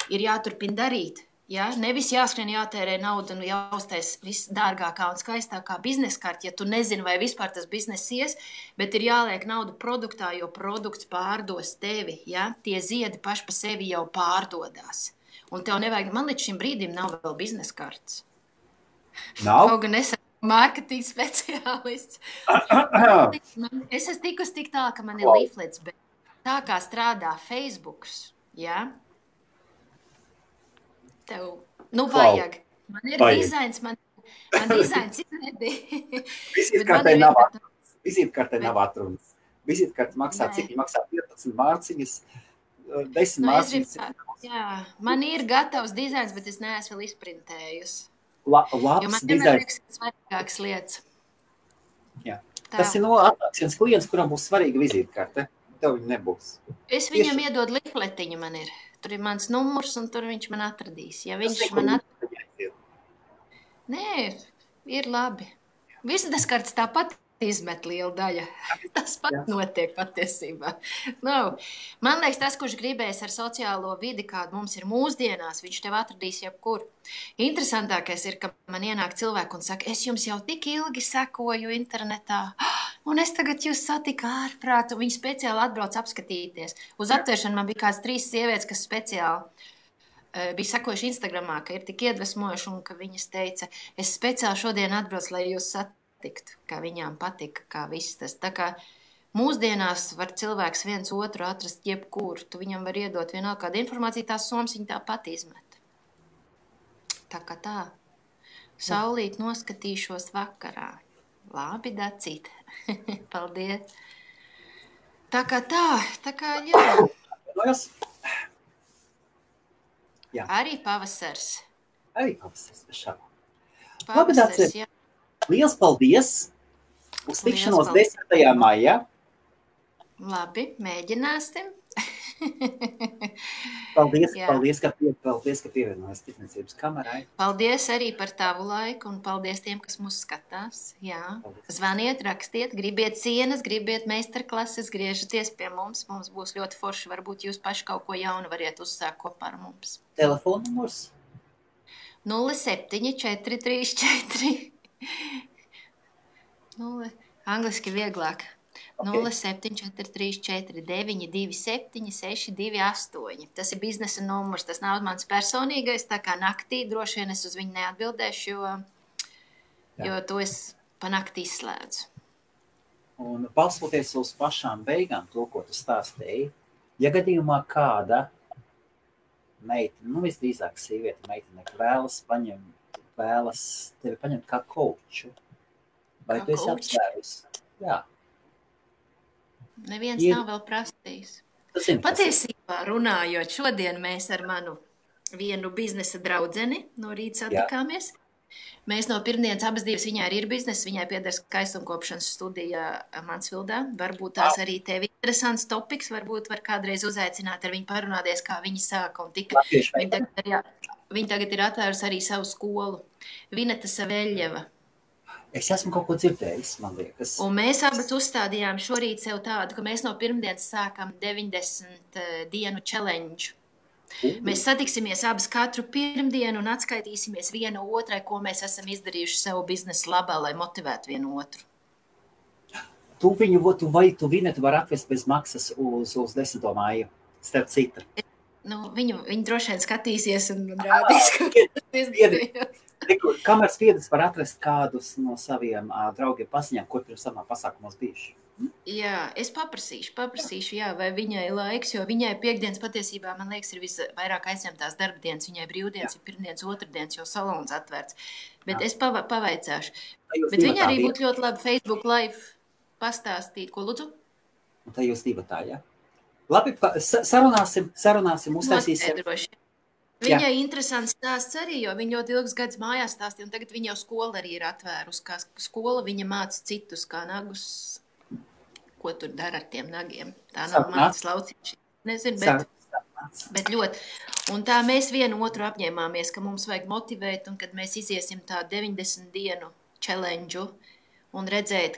Ir jāturpina darīt. Ja? Nevis jāskrien, jātērē naudu un jāuztais viss dārgākā un skaistākā bizneskārta, ja tu nezini, vai vispār tas biznes ies, bet ir jāliek naudu produktā, jo produkts pārdos tevi. Ja? Tie ziedi paši pa sevi jau pārdodās. Un tev nevajag, man līdz šim brīdim nav vēl bizneskārts. Nav? Kaut gan es esmu mārketinga speciālists. Es esmu tikus tik tā, ka man ir leaflets, bet tā kā strādā Facebooks, ja? Tev, vajag. Man ir dizains, man dizains ir nebija. Vizītkartē nav atrunas. Vizītkarte maksā, cik maksā 15 mārciņas, 10 mārciņas. Jā, man ir gatavs dizains, bet es neesmu vēl izprintējusi. Labs jo man dizains. liekas, svarīgākas lietas. Jā. Tas ir atnāks viens klients, kuram būs svarīga vizītkarte. Tev viņa nebūs. Es viņam iedodu lifletiņu, man ir. Tur ir mans numurs, un tur viņš man atradīs. Ja viņš man atradīs... Nē, ir labi. Vizītkartes tāpat izmet liela daļa. Tas pat notiek patiesībā. Man liekas, tas, kurš gribēs ar sociālo vidi, kāda mums ir mūsdienās, viņš tev atradīs jebkur. Interesantākais ir, ka man ienāk cilvēki un saka, es jums jau tik ilgi sekoju internetā, un es tagad jūs satiku ārprāt, un viņi speciāli atbrauc apskatīties. Uz atvēršanu man bija kāds 3 sievietes, kas speciāli bija sekojuši Instagramā, ka ir tik iedvesmojuši, un ka viņas teica, es speciāli šodien atbraucu, lai jūs satiktu, kā viņām patika, kā viss tas. Tā kā mūsdienās var cilvēks viens otru atrast jebkur, tu viņam var iedot vienalga kādu informāciju, tās somas viņa tāpat izmet. Tā kā tā. Saulīt noskatīšos vakarā. Labi, Dacīt. Paldies. Tā kā jā. Jā. Arī pavasars. Arī pavasaris, bez šaubām. Labi, Pavasars, Dace, jā. liels paldies! Uz tikšanos 10. maijā. Labi, mēģināsim. Paldies, Jā. paldies, ka pievienojies tirdzniecības kamerai. Paldies arī par tavu laiku un paldies tiem, kas mūs skatās. Jā. Paldies. Zvaniet, rakstiet, gribiet cienas, gribiet meistarklases, griežaties pie mums. Mums būs ļoti forši. Varbūt jūs paši kaut ko jaunu variet uzsākt kopā ar mums. Telefona numurs? 07434. Angliski vieglāk. Okay. 07434927628. Tas ir biznesa numurs, tas nav mans personīgais, tā kā naktī droši vien es uz viņu neatbildēšu, jo to es pa naktī izslēdzu. Un balstoties uz pašām beigām, to, ko tu stāstīji, ja gadījumā kāda meitene, visdrīzāk sieviete meitene, vēlas tevi paņemt kā kauču, vai tu esi apsvērusi? Jā. Neviens nav vēl prasījis. Patiesībā runājot, šodien mēs ar manu vienu biznesa draudzeni no rīta satikāmies. Mēs no pirmdienas abas divas, viņai ir biznesa, viņai pieder skaistumkopšanas studija Mansvildā. Varbūt tās arī tev interesants topiks, varbūt var kādreiz uzaicināt ar viņu parunāties, kā viņi sāka un tika. Viņa tagad ir atvērusi arī savu skolu. Vineta Saveļeva. Es esmu kaut ko dzirdējis, man liekas. Un mēs abas uzstādījām šorīt sev tādu, ka mēs no pirmdienas sākam 90 dienu challenge. Mēs satiksimies abas katru pirmdienu un atskaitīsimies viena otrai, ko mēs esam izdarījuši savu biznesu labā, lai motivētu vienu otru. Tu Vinetu var atvest bez maksas uz 10. māju, starp citu. Viņu droši vien skatīsies un rādīs, ka tas izdarījās. Kamēr spiedis var atrast kādus no saviem draugiem paziņām, kur pirms samā pasākumos bijuši? Jā, es paprasīšu, jā, vai viņai laiks, jo viņai piekdienas patiesībā, man liekas, ir visvairāk aizņemtās darbdienas. Viņai brīvdienas ir pirmdienas, otrdienas, jo salons atvērts. Bet es pavaicāšu. Bet viņa arī būtu ļoti labi Facebook live pastāstīt. Ko lūdzu? Un tā jūs divatā, jā? Labi, sarunāsim, uztaisīsim. Viņai interesants stāsts arī, jo viņa ļoti ilgus gadus mājās stāstīja, un tagad viņa jau skola arī ir atvērus. Kā skola viņa māca citus, kā nagus, ko tur dara ar tiem nagiem. Tā nav mācas laucīši. Nezinu, bet ļoti. Un tā mēs vienu otru apņēmāmies, ka mums vajag motivēt, un kad mēs iziesim tā 90 dienu challenge un redzēt,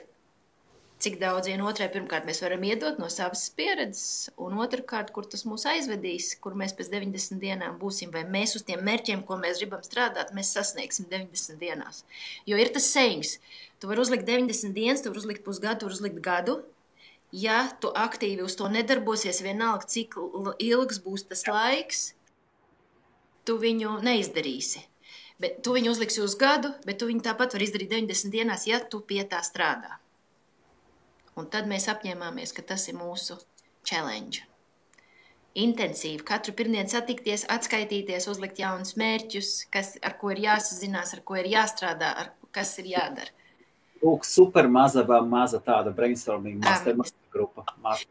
cik daudz vienotrai pirmkārt mēs varam iedot no savas pieredzes, un otrkārt, kur tas mūs aizvedīs, kur mēs pēc 90 dienām būsim, vai mēs uz tiem mērķiem, ko mēs gribam strādāt, mēs sasniegsim 90 dienās. Jo ir tas sayings, tu vari uzlikt 90 dienas, tu vari uzlikt pusgadu, tu vari uzlikt gadu. Ja tu aktīvi uz to nedarbosies, vienalga, cik ilgs būs tas laiks, tu viņu neizdarīsi. Bet tu viņu uzliksi uz gadu, bet tu viņu tāpat var izdarīt 90 dienās, ja tu pie tā strādā. Un tad mēs apņēmāmies, ka tas ir mūsu challenge. Intensīvi, katru pirmdienu satikties, atskaitīties, uzlikt jaunus mērķus, ar ko ir jāsazinās, ar ko ir jāstrādā, kas ir jādara. Lūk, super maza tāda brainstorming master grupa.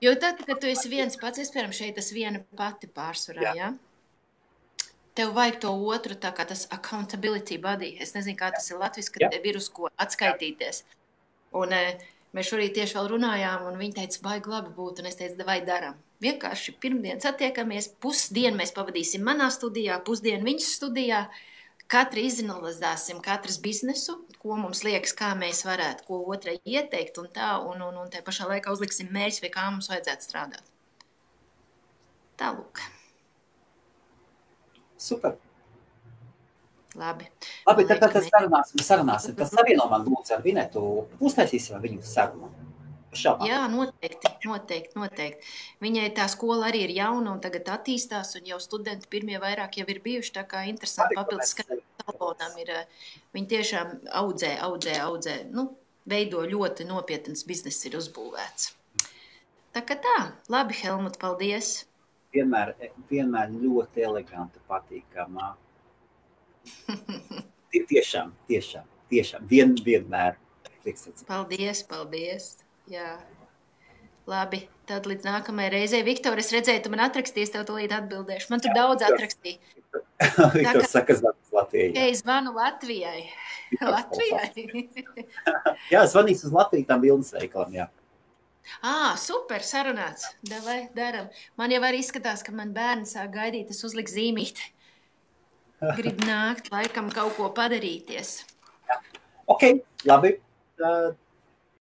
Jo tad, kad tu esi viens pats, iespējams, šeit tas viena pati pārsvarā, jā? Tev vajag to otru, tā kā tas accountability body. Es nezinu, kā tas ir latviski, kad tev ir uz ko atskaitīties. Un mēs šorīt tieši vēl runājām, un viņi teica, baigi labi būt, un es teicu, vai daram. Vienkārši pirmdien satiekamies, pusdienu mēs pavadīsim manā studijā, pusdienu viņas studijā, katru izanalizēsim katras biznesu, ko mums liekas, kā mēs varētu, ko otrai ieteikt, un tā, un te pašā laikā uzliksim mērķus, vai kā mums vajadzētu strādāt. Tālūk. Super. Labi, tad sarunāsim. Tas savieno man lūdzu ar Vinetu. Uztaisīsim viņu sarunu. Jā, noteikti. Viņai tā skola arī ir jauna un tagad attīstās, un jau studenti pirmie vairāk jau ir bijuši, tā kā interesanti papildus salonam ir. Viņi tiešām audzē, veido ļoti nopietnas bizness ir uzbūvēts. Tā kā tā, labi, Helmut, paldies. Vienmēr ļoti eleganta, patīkamā. Tiešām. Vienmēr. Paldies. Jā. Labi, tad līdz nākamajai reizei. Viktor, es redzēju, tu man atrakstīsi, tev tūlīt atbildēšu. Man tur daudz atrakstīja. Viktors saka, zvanīs Latvijai. Es zvanu Latvijai. Latvijai. Jā, zvanīs uz Latviju tam vilnas veikalam, jā. Super, sarunāts. Davai, daram. Man jau arī izskatās, ka man bērni sāk gaidīt, es uzliku zīmīti. Grib nākt, laikam kaut ko padarīties. Ok, labi.